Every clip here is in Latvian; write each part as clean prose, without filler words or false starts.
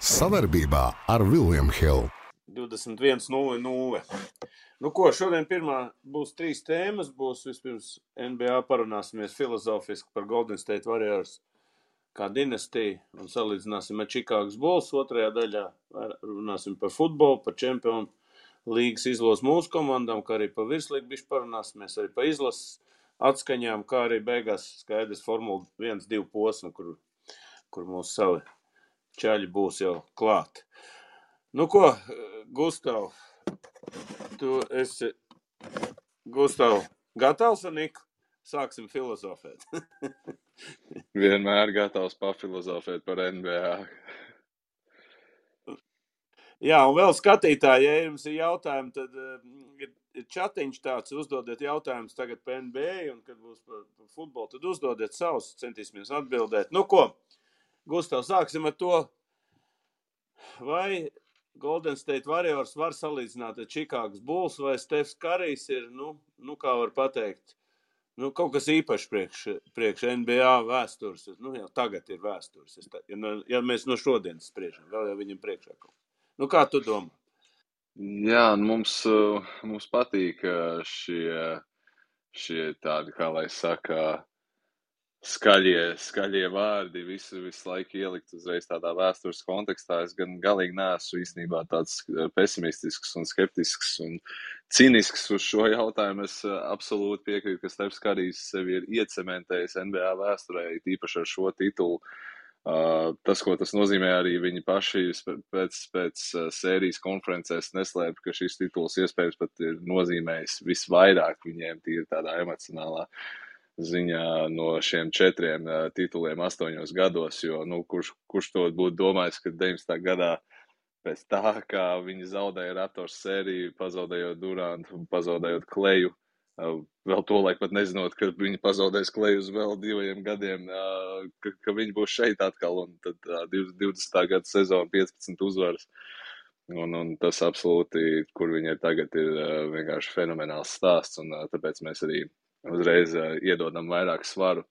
Savarbībā ar William Hill. 21:00. Nu ko, šodien pirmā būs 3 tēmas. Būs vispirms NBA parunāsimies filozofiski par Golden State Warriors kā dinastiju un salīdzināsim ar Chicago Bulls. Otrajā daļā runāsim par futbolu, par Čempionu līgas izlases mūsu komandām, kā arī par virslīgu bišķi parunāsimies, arī par izlases atskaņām, kā arī beigās skaidrs Formula 1-2 posma, kur mūsu savi čaļi būs jau klāt. Nu ko, Gustav, tu esi, gatavs ar Niku? Sāksim filozofēt. Vienmēr gatavs pafilozofēt par NBA. Jā, un vēl skatītāji, ja jums ir jautājumi, tad ir čatiņš tāds, uzdodiet jautājumus tagad par NBA, un kad būs par futbolu, tad uzdodiet savus, centīsimies atbildēt. Nu ko, Gustav, sāksim ar to, vai Golden State Warriors var salīdzināt ar Chicago Bulls, vai Stefs Karijs ir, nu kā var pateikt, kaut kas īpašs priekš NBA vēstures. Jau tagad ir vēstures. Ja mēs no šodienas spriežam, vēl jau viņam priekšā kaut. Kā tu domā? Jā, mums patīk šie tādi, kā lai saka, skaļie vārdi visu laiku ielikt uzreiz tādā vēstures kontekstā. Es gan galīgi neesmu īstenībā tāds pesimistisks un skeptisks un cinisks uz šo jautājumu. Es absolūti piekrītu, ka Stefs Karijs sevi ir iecementējis NBA vēsturē, īpaši ar šo titulu. Tas, ko tas nozīmē, arī viņi paši pēc sērijas konferencēs neslēpa, ka šis tituls iespējams pat ir nozīmējis visvairāk viņiem tīri tādā emocionālā ziņā no šiem 4 tituliem 8 gados, jo, kurš to būtu domājis, ka 19. gadā pēc tā, kā viņi zaudēja Raptors sēriju, pazaudējot Durantu, pazaudējot Kleju, vēl to laik pat nezinot, ka viņi pazaudēs Kleju uz vēl 2 gadiem, ka viņi būs šeit atkal, un tad 20. gada sezona 15 uzvaras, un tas absolūti, kur viņi ir tagad, ir vienkārši fenomenāls stāsts, un tāpēc mēs arī uzreiz iedodam vairāk svaru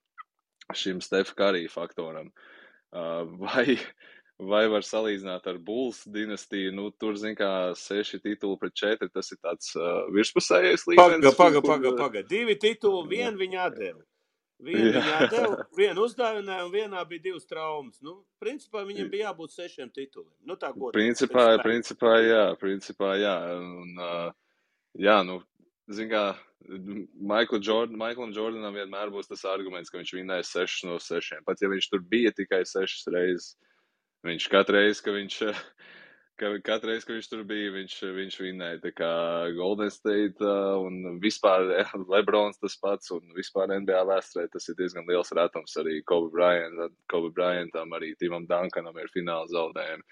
šim Stef Karija faktoram. Vai var salīdzināt ar Bulls dinastiju? Tur, zin kā, 6 tituli pret 4, tas ir tāds virspusējais līmenis. Paga. 2 tituli, vienu viņi atdeva. Vienu uzdāvināja, un vienā bija 2 traumas. Principā viņam bija jābūt 6 tituliem. Tā godīgi. Principā jā. Un, zin kā, Michaelam Jordanam vienmēr būs tas arguments, ka viņš vinnēja 6 no 6. Pat ja viņš tur bija tikai 6 reizes, viņš katru reizi, ka viņš tur bija, viņš vinnēja. Tā kā Golden State un vispār LeBrons tas pats, un vispār NBA vēsturē tas ir diezgan liels retums. Arī Kobe Bryantam, arī Timam Duncanam ir fināla zaudējumi.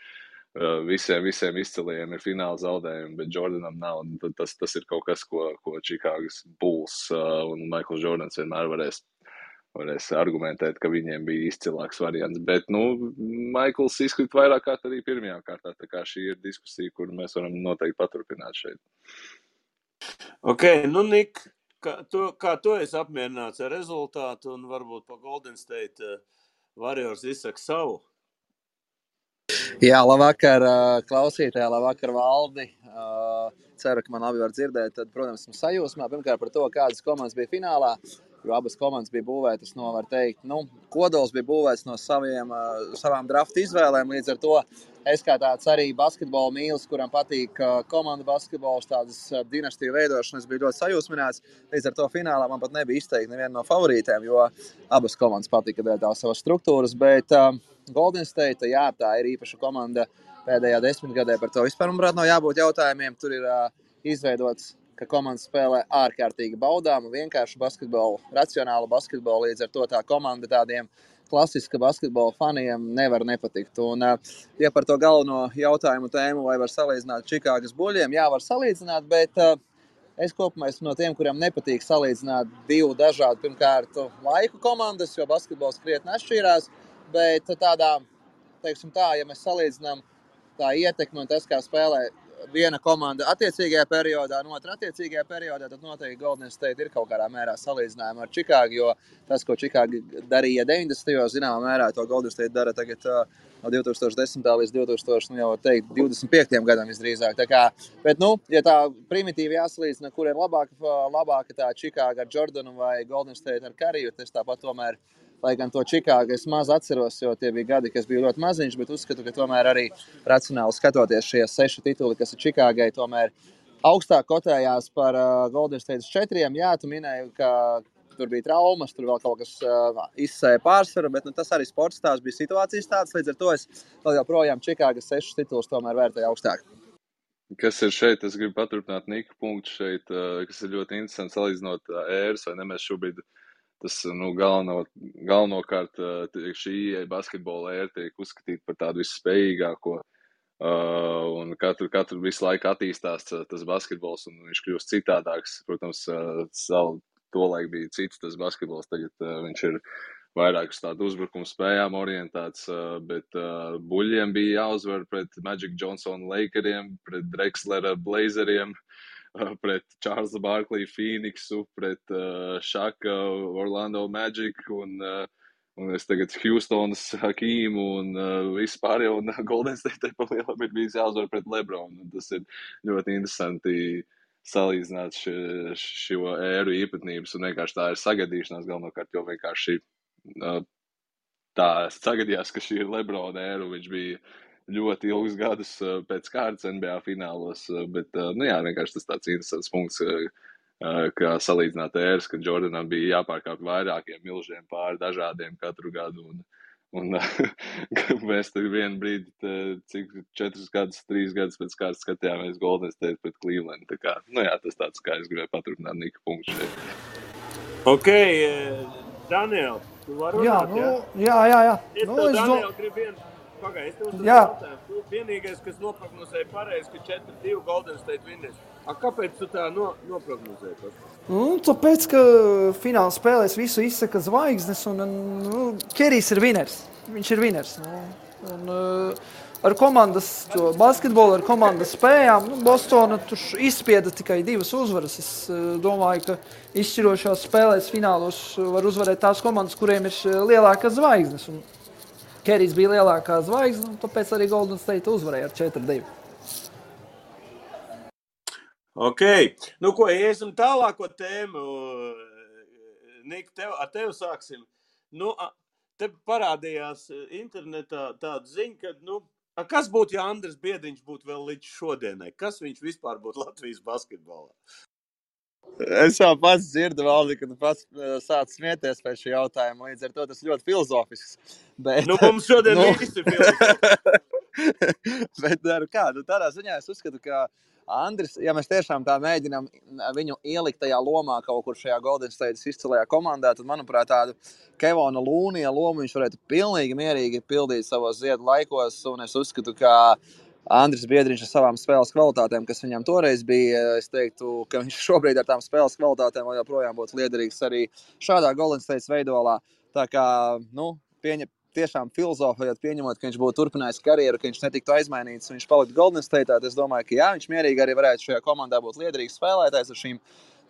Visiem izciliem ir fināla zaudējumi, bet Jordanam nav. Tas ir kaut kas, ko Chicago's Bulls un Michaels Jordans vienmēr varēs argumentēt, ka viņiem bija izcilāks variants. Bet, Michaels izkrīt vairāk kārt arī pirmajā kārtā. Tā kā šī ir diskusija, kur mēs varam noteikti paturpināt šeit. Ok, Nik, kā tu esi apmierināts ar rezultātu un varbūt pa Golden State Warriors izsaka savu? Jā, labvakar klausītāji, labvakar Valdi. Ceru, ka man labi var dzirdēt. Tad, protams, esmu sajūsmā pirmkārt par to, kādas komandas bija finālā, jo abas komandas bija būvētas no, var teikt, kodols bija būvēts no savām drafta izvēlēm. Līdz ar to es kā tāds arī basketbola mīlis, kuram patīk komanda basketbols, tādas dinastiju veidošanas, biju ļoti sajūsmināts. Līdz ar to finālā man pat nebija izteikti neviena no favorītēm, jo abas komandas patika dēļ tās savas struktūras, bet Golden State, jā, tā ir īpaša komanda pēdējā 10 gadē, par to vispār, manuprāt, nav jābūt jautājumiem. Tur ir izveidots, ka komanda spēlē ārkārtīgi baudām, vienkārši basketbolu, racionālu basketbolu, līdz ar to tā komanda tādiem klasiska basketbola faniem nevar nepatikt. Un, ja par to galveno jautājumu tēmu, vai var salīdzināt Chicagas Buļļiem, jā, var salīdzināt, bet es kopumā esmu no tiem, kuriem nepatīk salīdzināt 2 dažādu, pirmkārt, laiku komandas, jo basketbols krietni atšķīrās. Bet tādā, teiksim tā, ja mēs salīdzinām tā ietekmi un tas, kā spēlē viena komanda attiecīgajā periodā, un otra attiecīgajā periodā, tad noteikti Golden State ir kaut kādā mērā salīdzinājuma ar Chicago, jo tas, ko Chicago darīja 90. zināmā mērā, to Golden State dara tagad no 2010. Līdz 2025. Gadam visdrīzāk. Tā kā, bet, ja tā primitīvi jāsalīdzina, kur ir labāka tā Čikāga ar Jordanu vai Golden State ar Kariju, tas tāpat tomēr, lai gan to Čikāgu es maz atceros, jo tie bija gadi, kas bija ļoti maziņš, bet uzskatu, ka tomēr arī racionāli skatoties šie 6 tituli, kas ir Čikāgai, tomēr augstāk kotējās par Golden State 4. Jā, tu minēji, ka tur bija traumas, tur vēl kaut kas izsēja pārsvaru, bet tas arī sports tās bija situācijas tāds, līdz ar to es vēl joprojām Čikāgas 6 titulus tomēr vērtēju augstāk. Kas ir šeit, es gribu paturpināt Nika punktu šeit, kas ir ļoti interesants salīdzinot ēras, vai ne, mēs šobrīd tas galvenokārt šī basketbola ēra tiek uzskatīta par tādu visspējīgāko, un katru visu laiku attīstās tas basketbols, un viņš kļūst citādāks. Protams, tolaik bija cits tas basketbols, tagad viņš ir vairāk uz tādu uzbrukumu spējām orientēts, bet buļļiem bija jāuzvar pret Magic Johnson Lakeriem, pret Drexlera Blazeriem, pret Charlesa Barkley Phoenixu, pret Shaka Orlando Magic un es tagad Houstonas Hakīmu un vispār jau un Golden State palielam ir bijis jāuzvar pret LeBron. Un tas ir ļoti interesanti salīdzināt šo ēru īpatnības un vienkārši tā ir sagadīšanās galvenokārt, jo vienkārši tā sagadījās, ka šī ir LeBron ēra, viņš bija ļoti ilgus gadus pēc kārtas NBA finālos, bet, vienkārši tas tāds interesants punkts, kā salīdzināt ēras, ka Jordanam bija jāpārkāp vairākiem milžiem pāri dažādiem katru gadu, un mēs tur vienu brīdi, cik 4 gadus, 3 gadus pēc kārtas skatījāmies Golden State pret Cleveland, tā kā, tas tāds, kā es gribēju paturpināt Nika punktu šeit. Ok, Daniel, tu vari runāt, jā? Jā. Es tev, Daniel, gribu vienu. Pagaid, es tev uzdevu jautājumu. Tu vienīgais, kas noprognozēja pareizi, ka 4-2 Golden State vinnēs. Kāpēc tu tā noprognozēji? Tāpēc, ka fināla spēlēs visu izsaka zvaigznes, un Kerijs ir viners. Viņš ir viners. Un ar komandas basketbolu, ar komandas spējām, Bostona tur izspieda tikai 2 uzvaras. Es domāju, ka izšķirošās spēlēs finālos var uzvarēt tās komandas, kuriem ir lielākas zvaigznes. Un Kerijs bija lielākā zvaigzne, un tāpēc arī Golden State uzvarēja ar 4-2. Ok. Ko, iesim tālāko tēmu. Nik, ar tevi sāksim. Te parādījās internetā tāda ziņa, ka, kas būtu, ja Andris Biedriņš būtu vēl līdz šodienai? Kas viņš vispār būtu Latvijas basketbolā? Es jau pats dzirdu, Valdi, ka tu pats sāc smieties pēc šī jautājuma, līdz ar to tas ļoti filozofisks. Bet, mums šodien visi filozofisks. Bet tādā ziņā es uzskatu, ka Andris, ja mēs tiešām tā mēģinām viņu ielikt tajā lomā kaut kur šajā Golden State izcilajā komandā, tad, manuprāt, tādu Kevona Lūnija lomu viņš varētu pilnīgi mierīgi pildīt savos ziedu laikos, un es uzskatu, ka Andris Biedriņš ar savām spēles kvalitātēm, kas viņam toreiz bija, es teiktu, ka viņš šobrīd ar tām spēles kvalitātēm vēl joprojām būtu liederīgs arī šādā Golden State veidolā. Tā kā, tiešām filozofējot, pieņemot, ka viņš būtu turpinājis karjeru, ka viņš netiktu aizmainīts, viņš paliktu Golden State, tad es domāju, ka jā, viņš mierīgi arī varētu šajā komandā būt liederīgs spēlētājs ar šīm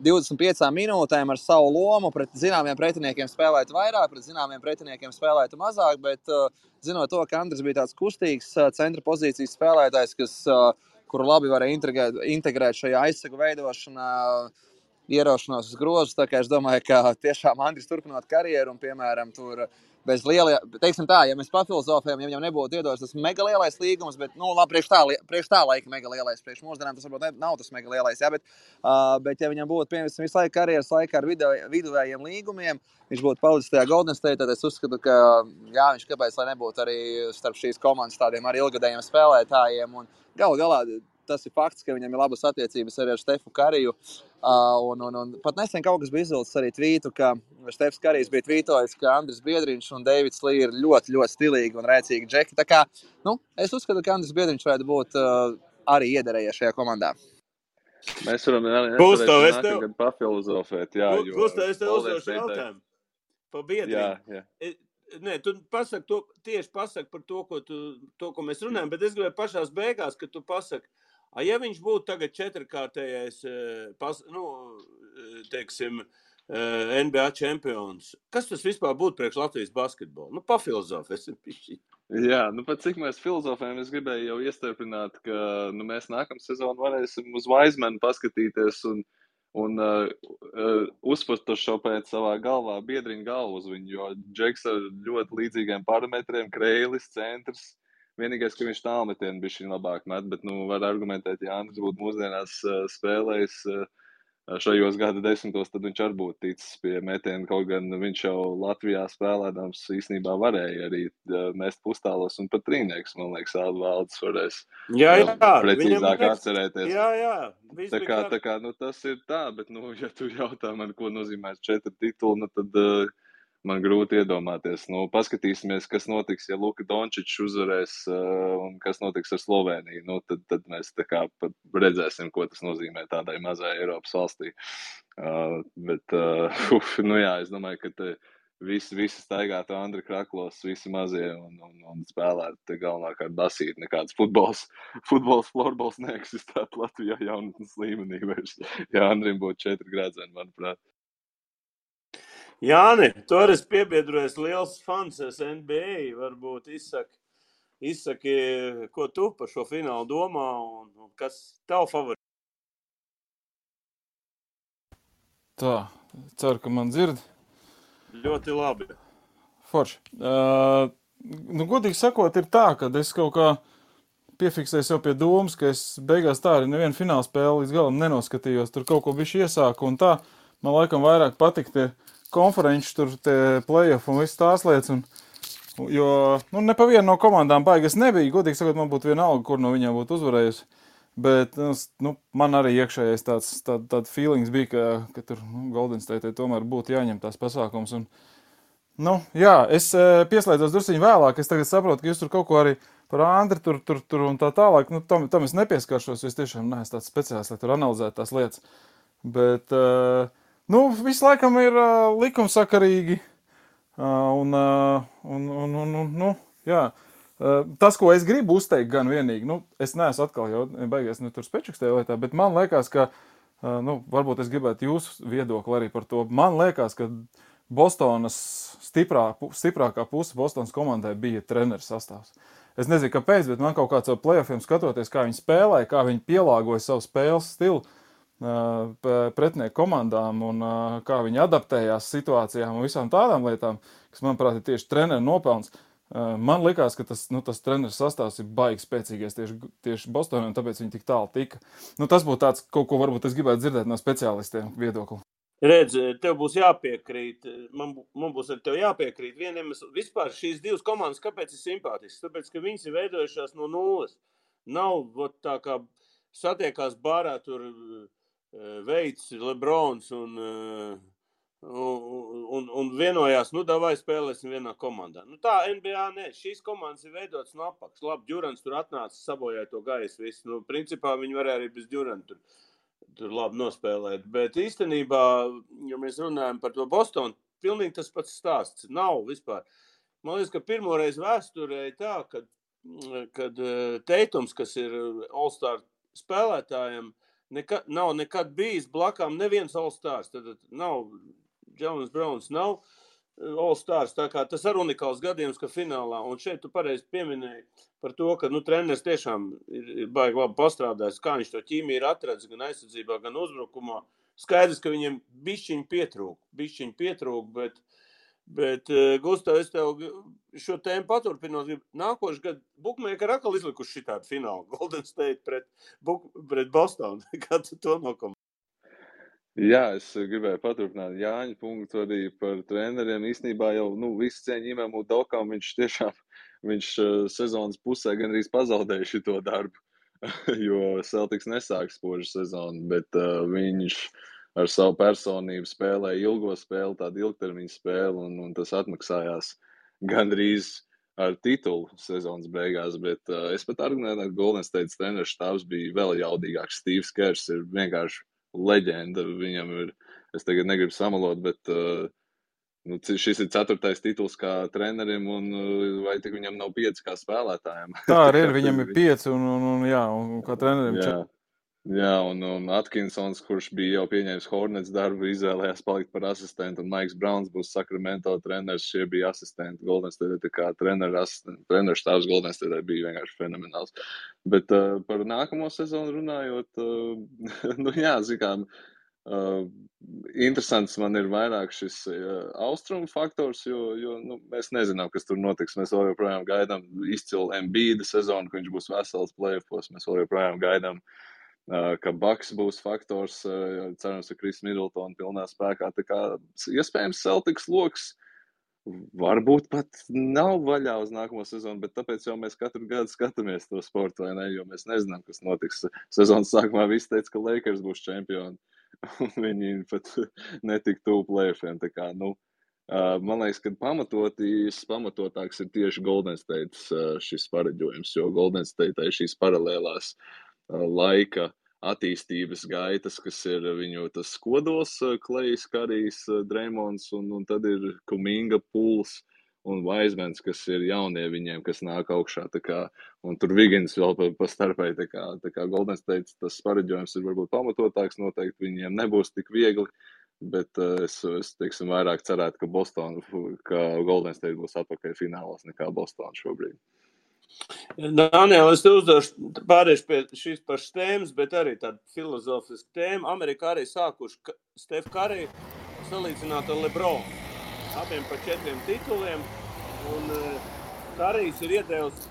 25 minūtēm ar savu lomu, pret zināmiem pretiniekiem spēlētu vairāk, pret zināmiem pretiniekiem spēlētu mazāk, bet zinot to, ka Andris bija tāds kustīgs centra pozīcijas spēlētājs, kuru labi varēja integrēt šajā aizsegu veidošanā, ieraušanos uz grozus, tā kā es domāju, ka tiešām Andris turpinot karjeru un, piemēram, tur bez lielajā, teiksim tā, ja mēs pafilozofējam, ja viņam nebūtu iedots tas mega lielais līgums, bet, labi, priekš tā laika mega lielais, priekš mūsdienām tas varbūt nav tas mega lielais, jā, bet ja viņam būtu, piemēram, visu laiku karjeras laikā ar viduvējiem līgumiem, viņš būtu palicis tajā Golden State, tad es uzskatu, ka, jā, viņš kāpēc, lai nebūtu arī starp šīs komandas tādiem arī ilgadējiem spēlētājiem, un galā tas ir fakts, ka viņam ir labas attiecības arī ar Stefu Kariju. Un pat nesen kaut kas bija izvilcis arī tvītu, ka Stefs Karijs bija tvītojis, ka Andris Biedriņš un Deivids Lī ir ļoti, ļoti stilīgi un rēcīgi džeki. Tā kā, es uzskatu, ka Andris Biedriņš varētu būt arī iederējies šajā komandā. Mēs varam nākamgad pafilozofēt, jā. Gustav, es tev uzdošu jautājumu par Biedriņu. Jā. Nē, tu tieši pasaki par to, ko mēs runājam, bet es gribēju pašās beigās, ka tu pasaki, ja viņš būtu tagad 4-kārtējais, NBA čempions, kas tas vispār būtu priekš Latvijas basketbolu? Pafilozofēsim pišķi. Jā, nu pat cik mēs filozofējam, es gribēju jau iestarpināt, ka mēs nākamā sezonu varēsim uz Vaizmanu paskatīties un uzfotošopēt savā galvā biedriņu galvu uz viņu, jo Džeks ar ļoti līdzīgiem parametriem, Kreilis, centrs, vienīgais, ka viņš tālmetienu bišķiņ labāk met, bet, var argumentēt, ja Andris būtu mūsdienās spēlējis šajos gada desmitos, tad viņš arī būtu ticis pie metiena, kaut gan viņš jau Latvijā spēlēdams īstenībā varēja arī mest pustālos un pat trīnieks, man liekas, Valdis varēs precīzāk atcerēties. Jā. Tā kā, tas ir tā, bet, ja tu jautā man, ko nozīmē 4 tituli, tad man grūti iedomāties. Paskatīsimies, kas notiks, ja Luka Dončičs uzvarēs un kas notiks ar Sloveniju. Tad mēs tā kā redzēsim, ko tas nozīmē tādai mazai Eiropas valstī. Jā, es domāju, ka visi staigātu Andri Kraklos, visi mazie un spēlētu galvenākārt basīt. Nekāds futbols, florbols neeksistētu Latvijā jaunatnes līmenī vairs. Ja Andrim būtu 4 grādzeni, manuprāt. Jāni, tu arī esi piebiedrojies liels fans NBA, varbūt izsaki, ko tu par šo finālu domā un kas tavu favorīti? Tā, ceru, ka man dzird. Ļoti labi. Forši. Godīgi sakot, ir tā, ka es kaut kā piefiksēju sev pie domas, ka es beigās tā arī nevienu fināla spēli līdz galam nenoskatījos. Tur kaut ko bišķi iesāku un tā. Man laikam vairāk patīk tie konferenči, tur tie play-off un viss tās lietas. Jo ne pa vienu no komandām baigas nebija. Godīgi sakot, man būtu vienalga, kur no viņām būtu uzvarējusi. Bet man arī iekšējais tāds feelings bija, ka tur Golden State tomēr būtu jāņem tās pasākums. Jā, es pieslēdzos drusciņu vēlāk. Es tagad saprotu, ka jūs tur kaut ko arī par Andri tur un tā tālāk. Tam es nepieskaršos, jo es tiešām neesmu tāds speciāls, lai tur analizētu tās lietas. Bet visu laikam ir likumsakarīgi. Jā. Tas, ko es gribu uzteikt gan vienīgi, es neesmu atkal jau beigās tur spečukstēju lietā, bet man liekas, ka, varbūt es gribētu jūsu viedokli arī par to. Man liekas, ka Bostonas stiprākā puse Bostonas komandai bija treneru sastāvs. Es nezinu, kāpēc, bet man kaut kāds ar playoffiem skatoties, kā viņi spēlēja, kā viņi pielāgoja savu spēles stilu pretinieku komandām un kā viņi adaptējās situācijām un visām tādām lietām, kas, manuprāt, ir tieši treneru nopelns. Man likās, ka tas treneru sastāvs ir baigi spēcīgais tieši Bostonā, un tāpēc viņi tik tālu tika. Tas būtu tāds, kaut ko varbūt es gribētu dzirdēt no speciālistiem viedokli. Redz, tev būs jāpiekrīt, man būs ar tev jāpiekrīt. Vieniem vispār šīs divas komandas, kāpēc ir simpātisks? Tāpēc, ka viņas ir veidojušās no nulles. Nav tā kā satiekās bārā tur Veids, Lebrons un vienojās, davai spēlēsim vienā komandā. Tā NBA ne, šīs komandas ir veidotas no apakšas. Labi, Džurants tur atnāca, sabojāja to gaisu visu. Principā viņi varēja arī bez Džuranta tur labi nospēlēt. Bet īstenībā, ja mēs runājam par to Bostonu, pilnīgi tas pats stāsts. Nav vispār. Man liekas, ka pirmoreiz vēsturē tā, kad Teitums, kas ir All-Star spēlētājiem, nav nekad bijis blakām neviens All-Stars. Tad nav Jalen Browns, nav All-Stars. Tā kā tas ir unikāls gadījums, ka finālā. Un šeit tu pareizi pieminēji par to, ka treneris tiešām ir baigi labi pastrādājis, kā viņš to ķīmiju ir atradzis gan aizsardzībā, gan uzbrukumā. Skaidrs, ka viņiem bišķiņ pietrūk, bet Gustav, es tev šo tēmu paturpinot, nākošu gadu Bookmaker atkal izlikuši šitādu finālu Golden State pret Bostonu. Kā tu to nokomentē? Jā, es gribēju paturpināt Jāņa punktu arī par treneriem. Īstenībā jau visu cieņu Imam Udokam viņš sezonas pusē gandrīz pazaudēja šito darbu, jo Celtics nesāk spožu sezonu, bet viņš ar savu personību spēlēja ilgo spēli, tādu ilgtermiņu spēli, un tas atmaksājās gandrīz ar titulu sezonas beigās, bet es pat argumentēju, ka Golden State treneris štābs bija vēl jaudīgāks. Steve's Kerrs ir vienkārši leģenda. Viņam ir, es tagad negribu samalot, bet šis ir 4. tituls kā trenerim, un vai tik viņam nav 5 kā spēlētājiem? Tā arī ir, viņam ir 5, un kā trenerim 4. Jā, un Atkinsons, kurš bija jau pieņēmis Hornets darbu, izvēlējās palikt par asistentu, un Maiks Brauns būs Sacramento treneris, šie bija asistenti Golden State, tā kā treneru štābs Golden State bija vienkārši fenomenāls. Bet par nākamo sezonu runājot, nu jā, zinām, interesants man ir vairāk šis austrumu faktors, jo nu, mēs nezinām, kas tur notiks. Mēs vēl joprojām gaidām izcilu Embiida sezonu, ka viņš būs vesels play-offos, mēs vēl joprojām gaidām ka Bucks būs faktors, cerams, ka Kris Middletona pilnā spēkā. Tā kā iespējams Celtics loks varbūt pat nav vaļā uz nākamo sezonu, bet tāpēc jau mēs katru gadu skatāmies to sportu, vai ne, jo mēs nezinām, kas notiks. Sezonas sākumā visi teica, ka Lakers būs čempioni, un viņi pat netika tuvu play-offiem. Tā kā, nu, man liekas, ka pamatotāks ir tieši Golden State šis pareģojums, jo Golden State šīs paralēlās laika attīstības gaitas, kas ir viņu tas kodols, Klejs, Karijs, Dreimons, un tad ir Kuminga, Puls un Vaismans, kas ir jaunie viņiem, kas nāk augšā. Tā kā, un tur Vigins vēl pa starpai. Tā kā Golden State tas pareģojums ir varbūt pamatotāks, noteikti viņiem nebūs tik viegli, bet es teiksim, vairāk cerētu, ka Golden State būs atpakaļ finālos nekā Boston šobrīd. Daniel, es te uzdošu pārējuši pie šīs pašas tēmas, bet arī tāda filozofiska tēma. Amerikā arī sākuši Steph Curry salīdzināt ar LeBron. Abiem pa 4 tituliem. Un Currys ir iedevis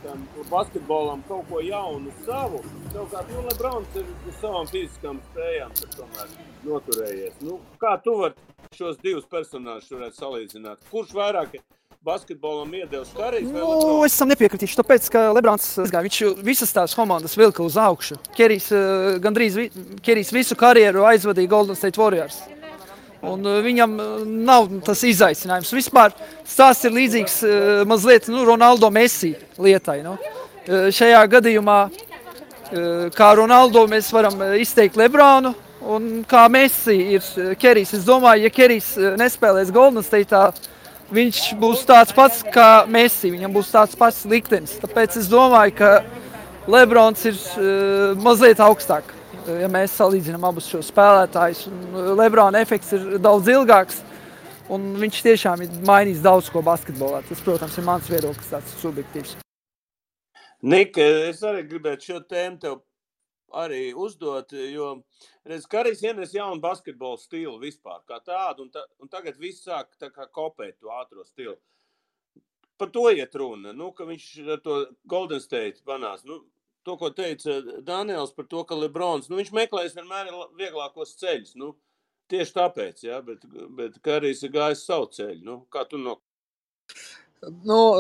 tam basketbolam kaut ko jaunu savu. Savukārt, LeBrons ir uz savām fiziskām spējām, tad tomēr noturējies. Nu, kā tu vari šos divus personāžus varētu salīdzināt? Kurš vairāk basketbolam iedevis Currys vai LeBron? Es tam nepiekritīšu, tāpēc, ka LeBrons viņš visas tās komandas vilka uz augšu. Kerijs visu karjeru aizvadīja Golden State Warriors. Un viņam nav tas izaicinājums. Vispār stāsts ir līdzīgs mazliet Ronaldo Messi lietai. Šajā gadījumā, kā Ronaldo, mēs varam izteikt LeBronu, un kā Messi ir Kerijs. Es domāju, ja Kerijs nespēlēs Golden State'ā, viņš būs tāds pats kā Messi, viņam būs tāds pats liktenis. Tāpēc es domāju, ka LeBrons ir mazliet augstāk, ja mēs salīdzinām abus šos spēlētājus. LeBrona efekts ir daudz ilgāks, un viņš tiešām ir mainījis daudz ko basketbolā. Tas, protams, ir mans viedoklis, tāds subjektīvs. Nik, es arī gribētu šo tēmu tev arī uzdot, jo redz, Currys ienes jaunu basketbolu stilu vispār kā tādu, un tagad viss sāk tā kā kopēt to ātro stilu. Par to iet runa, ka viņš ar to Golden State panās. To, ko teica Daniels par to, ka LeBrons, viņš meklēs vienmēr vieglākos ceļus. Tieši tāpēc, ja, bet Currys ir gājis savu ceļu. Kā tu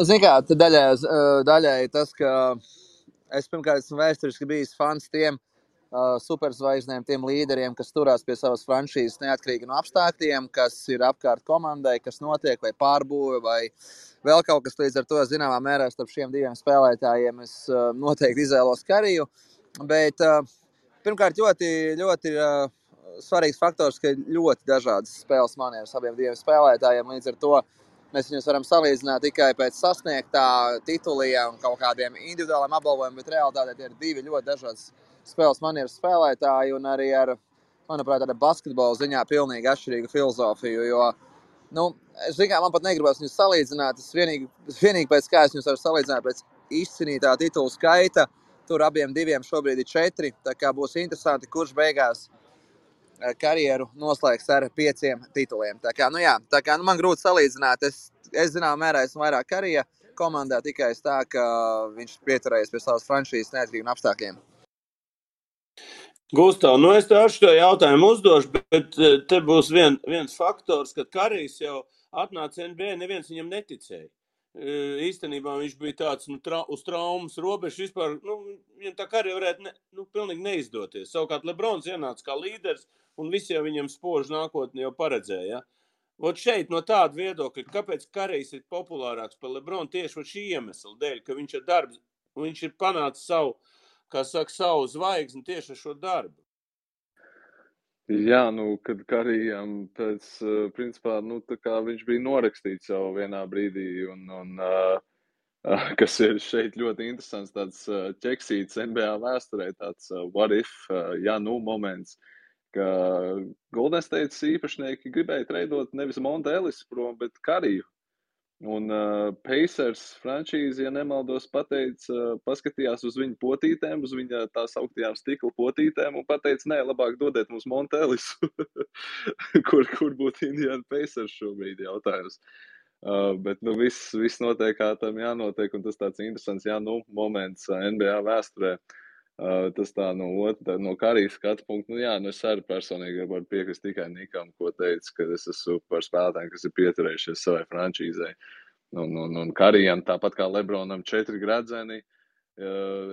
Zini kā, daļai tas, ka es pirmkārt esmu vēsturiski bijis fans tiem superzvaigznēm, tiem līderiem, kas turās pie savas franšīzes neatkarīgi no apstākļiem, kas ir apkārt komandai, kas notiek, vai pārbūve, vai vēl kaut kas. Līdz ar to, zināmā mērā, starp šiem diviem spēlētājiem es noteikti izvēlos Curryu. Bet pirmkārt, ļoti svarīgs faktors, ka ir ļoti dažādas spēles manieres abiem diviem spēlētājiem. Līdz ar to mēs viņus varam salīdzināt tikai pēc sasniegtā tituliem un kaut kādiem individuāliem apbalvojumiem, bet realitātē tie ir divi ļoti dažādas spēles manieres spēlētāji un arī ar, manuprāt, ar basketbola ziņā pilnīgi atšķirīgu filozofiju, jo, es zinu, man pat negribas viņus salīdzināt, es vienīgi pēc kā es viņus varu salīdzināt pēc izcīnītā titulu skaita, tur abiem diviem šobrīd ir 4, tā kā būs interesanti, kurš beigās karjeru noslēgs ar 5 tituliem. Tā kā man grūti salīdzināt. Es zināmā mērā esmu vairāk Currya komandā tikai tā, ka viņš pieturējies pie savas franšīzes neatkarīgi no apstākļiem. Gustav, es tev ar šo jautājumu uzdošu, bet te būs viens faktors, ka Currys jau atnāca NBA, neviens viņam neticēja. Īstenībā viņš bija tāds uz traumas robežas vispār, viņam tā karjera varētu pilnīgi neizdoties. Savukārt LeBrons ienāca kā līderis un visi jau viņam spožu nākotni jau paredzēja. Vot šeit no tāda viedokļa, kāpēc Currys ir populārāks par LeBronu tieši šī iemesla dēļ, ka viņš ar darbu, viņš ir panācis savu zvaigzni tieši ar šo darbu. Jā, kad Curryam principā, tā kā viņš bija norakstīts jau vienā brīdī un kas ir šeit ļoti interesants, tāds ķeksīts NBA vēsturē, tāds what if, ja nu moments, ka Golden State īpašnieki gribēja treidot nevis Monte Ellisu prom, bet Kariju. Un Pacers frančīze, ja nemaldos, paskatījās uz viņu potītēm, uz viņa tās augtajām stikla potītēm un pateica, nē, labāk dodiet mums Monte Ellisu. kur būtu Indiana Pacers šobrīd jautājums. Bet viss notiek, kā tam jānotiek, un tas tāds interesants moments NBA vēsturē. Tas tā no Karijas skatu punktu, es arī personīgi varu piekrist tikai Nikam, ko teica, ka es esmu par spēlētājiem, kas ir pieturējušies savai frančīzei. Un Karijam, tāpat kā Lebronam 4 gradzeni,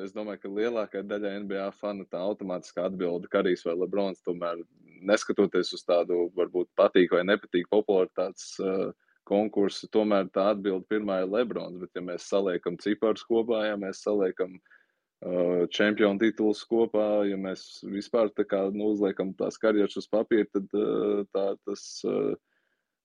es domāju, ka lielākā daļa NBA fanu tā automātiski atbilda Karijs vai Lebrons, tomēr neskatoties uz tādu varbūt patīk vai nepatīk popularitātes konkursu, tomēr tā atbilda pirmā ir Lebrons, bet ja mēs saliekam ciparus kopā, ja mēs saliekam čempionu tituls kopā, ja mēs vispār tā kā uzliekam tās karjeras uz papīra, tad tas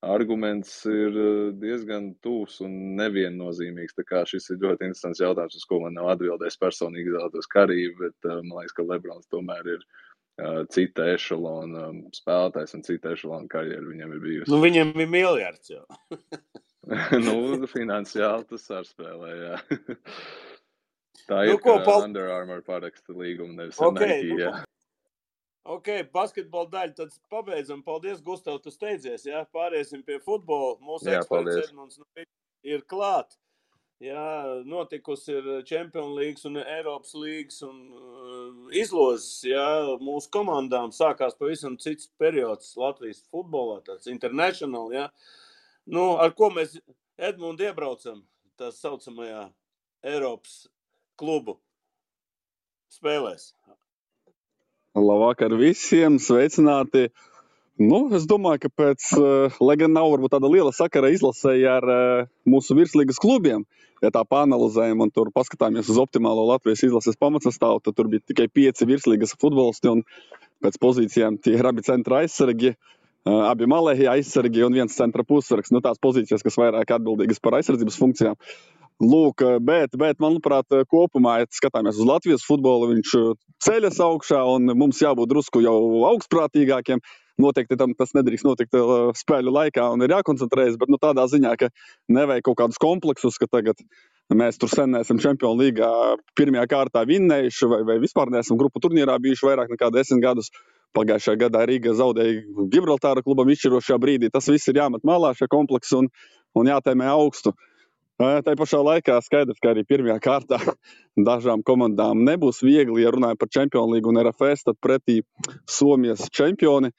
arguments ir diezgan tūs un neviennozīmīgs. Tā kā šis ir ļoti interesants jautājums, uz ko man nav atbildējis personīgi izvēlētos Kariju, bet man liekas, ka Lebrons tomēr ir cita ešalona spēlētājs un cita ešalona karjera viņam ir bijusi. Viņam ir miljards jau. Finansiāli tas ar spēlē, jā. Tā ir, ka Under Armour paraksta līgumu, nevis Nike, jā. Ok, basketbola daļu, tad pabeidzam. Paldies, Gustav, tu steidzies, jā. Pāriesim pie futbola. Mūsu eksperts Edmunds ir klāt. Jā, notikusi ir Champions Leagues un Eiropas līgas un izlozes, jā. Mūsu komandām sākās pavisam cits periods Latvijas futbolā, tāds international, jā. Ar ko mēs Edmundu iebraucam, tā saucamajā Eiropas klubu spēlēs. Labvakar visiem, sveicināti. Es domāju, ka lai gan nav varbūt tāda liela sakara izlasēja ar mūsu virslīgas klubiem, ja tā pāanalizējam un tur paskatāmies uz optimālo Latvijas izlases pamatsastāvu, tad tur bija tikai 5 virslīgas futbolisti un pēc pozīcijām tie ir abi centra aizsargi, abi malēji aizsargi un viens centra pussargs. Tās pozīcijas, kas vairāk atbildīgas par aizsardzības funkcijām. Lūk, bet manuprāt, kopumā, ja skatāmies uz Latvijas futbolu, viņš ceļas augšā un mums jābūt drusku jau augstprātīgākiem. Noteikti tas nedrīkst notikt spēļu laikā un ir jākoncentrējas, bet tādā ziņā, ka nevajag kaut kādus kompleksus, ka tagad mēs tur sen neesam Čempionu līgā pirmajā kārtā vinnējuši vai vispār neesam grupu turnīrā bijuši vairāk nekā 10 gadus. Pagājušajā gadā Rīga zaudēja Gibraltāra klubam izšķirošajā brīdī. Tas viss ir jāmet malā šie kompleksi un jātēmē augstu. Tā pašā laikā skaidrs, ka arī pirmajā kārtā dažām komandām nebūs viegli, ja runājam par Čempionu līgu un RFS, tad pretī Somijas čempioni.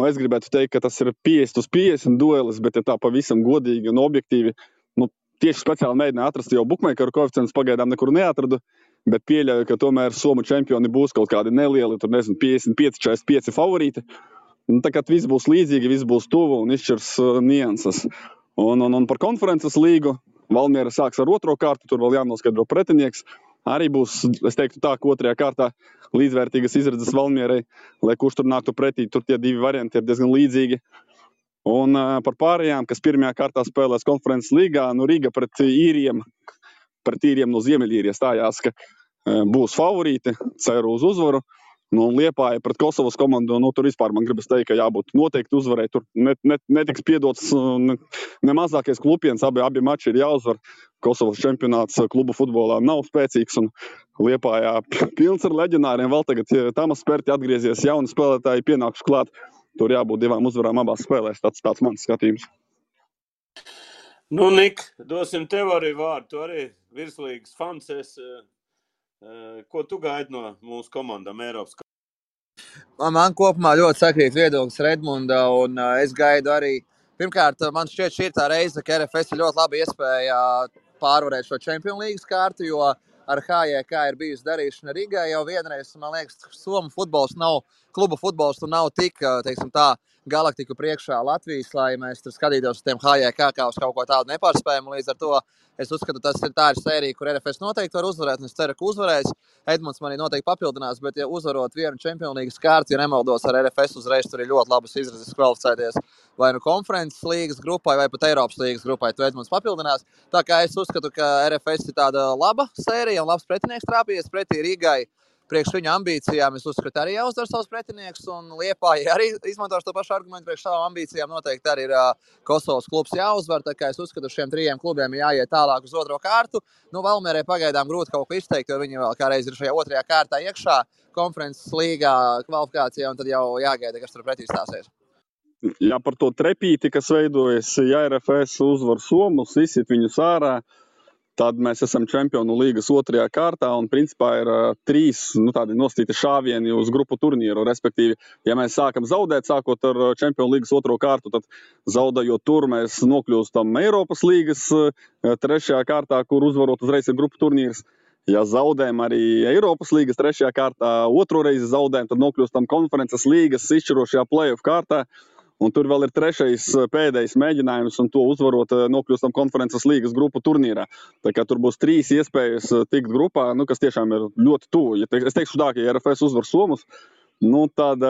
Es gribētu teikt, ka tas ir 50-50 duelis, bet ja tā pavisam godīgi un objektīvi, tieši speciāli mēģināju atrast jau bukmeikeru koeficients, pagaidām nekur neatradu, bet pieļauju, ka tomēr Somu čempioni būs kaut kādi nelieli, 55-45 favorīti. Tā kā viss būs līdzīgi, viss būs tuvu un izšķirs nianses. Un par konferences līgu Valmiera sāks ar 2. kārtu, tur vēl jānoskaidro pretinieks. Arī būs, es teiktu tā, ka 2. kārtā līdzvērtīgas izredzes Valmierai, lai kurš tur nāktu pretī, tur tie 2 varianti ir diezgan līdzīgi. Un par pārējām, kas 1. kārtā spēlēs konferences līgā, Rīga pret īriem no Ziemeļīrijas stājās, ka būs favorīti, ceru uz uzvaru. Liepāja pret Kosovas komandu, tur vispār man gribas teikt, ka jābūt noteikti uzvarai. Tur netiks piedots ne mazākais klupiens, abi mači ir jāuzvar. Kosovas čempionāts klubu futbolā nav spēcīgs un Liepājā pilns ar leģionāriem. Vēl tagad Tamas Perti atgriezies, jauni spēlētāji pienākuši klāt. Tur jābūt 2 uzvarām abās spēlēs, tāds mans skatījums. Nik, dosim tev arī vārdu, tu arī virslīgas fans esi. Ko tu gaidi no mūsu komandām Eiropas? Man kopumā ļoti sakrīt viedoklis Redmunda, un es gaidu arī. Pirmkārt, man šķiet, šī ir tā reize, ka RFS ir ļoti labi iespēja pārvarēt šo Čempionu līgas kārtu, jo ar HJK ir bijusi darīšana Rīgā jau vienreiz. Man liekas, Somu futbols klubu futbols nav tik, teiksim tā, galaktiku priekšā Latvijas, lai mēs tur skatītos uz tiem HJK kā uz kaut ko tādu nepārspējumu. Līdz ar to Es uzskatu, tā ir sērija, kur RFS noteikti var uzvarēt, un es ceru, ka uzvarēs. Edmunds manī noteikti papildinās, bet ja uzvarot vienu Čempionu līgas kārtu, ja nemaldos ar RFS uzreiz, tur ir ļoti labas izredzes kvalificēties vai nu konferences līgas grupai, vai pat Eiropas līgas grupai, tu Edmunds papildinās. Tā kā es uzskatu, ka RFS ir tāda laba sērija un labs pretinieks trāpījies pretī Rīgai. Priekš viņu ambīcijām es uzskatu arī jāuzdara savus pretinieks, un Liepāja arī izmantošu to pašu argumentu priekš savām ambīcijām. Noteikti arī ir Kosovas klubs jāuzvar, tā kā es uzskatu, šiem 3 klubiem jāiet tālāk uz otro kārtu. Valmierē pagaidām grūti kaut ko izteikt, jo viņi vēl kādreiz ir šajā otrajā kārtā iekšā konferences līgā kvalifikācijā, un tad jau jāgaida, kas tur pretī stāsies. Jā, par to trepīti, kas veidojas, ja RFS uzvar Somus, izsit viņus ārā, tad mēs esam Čempionu līgas otrajā kārtā, un principā ir 3 tādi nostīti šāvieni uz grupu turnīru. Respektīvi, ja mēs sākam zaudēt, sākot ar Čempionu līgas otro kārtu, tad zaudējot tur, mēs nokļūstam Eiropas līgas trešajā kārtā, kur uzvarot uzreiz ir grupu turnīrs. Ja zaudējam arī Eiropas līgas trešajā kārtā, otro reizi zaudējam, tad nokļūstam konferences līgas izšķirošajā play-off kārtā. Un tur vēl ir 3. pēdējais mēģinājums, un to uzvarot nokļūstam konferences līgas grupu turnīrā. Tā kā tur būs 3 iespējas tikt grupā, kas tiešām ir ļoti tuvu. Es teikšu tā, ka ja RFS uzvar Somus, tad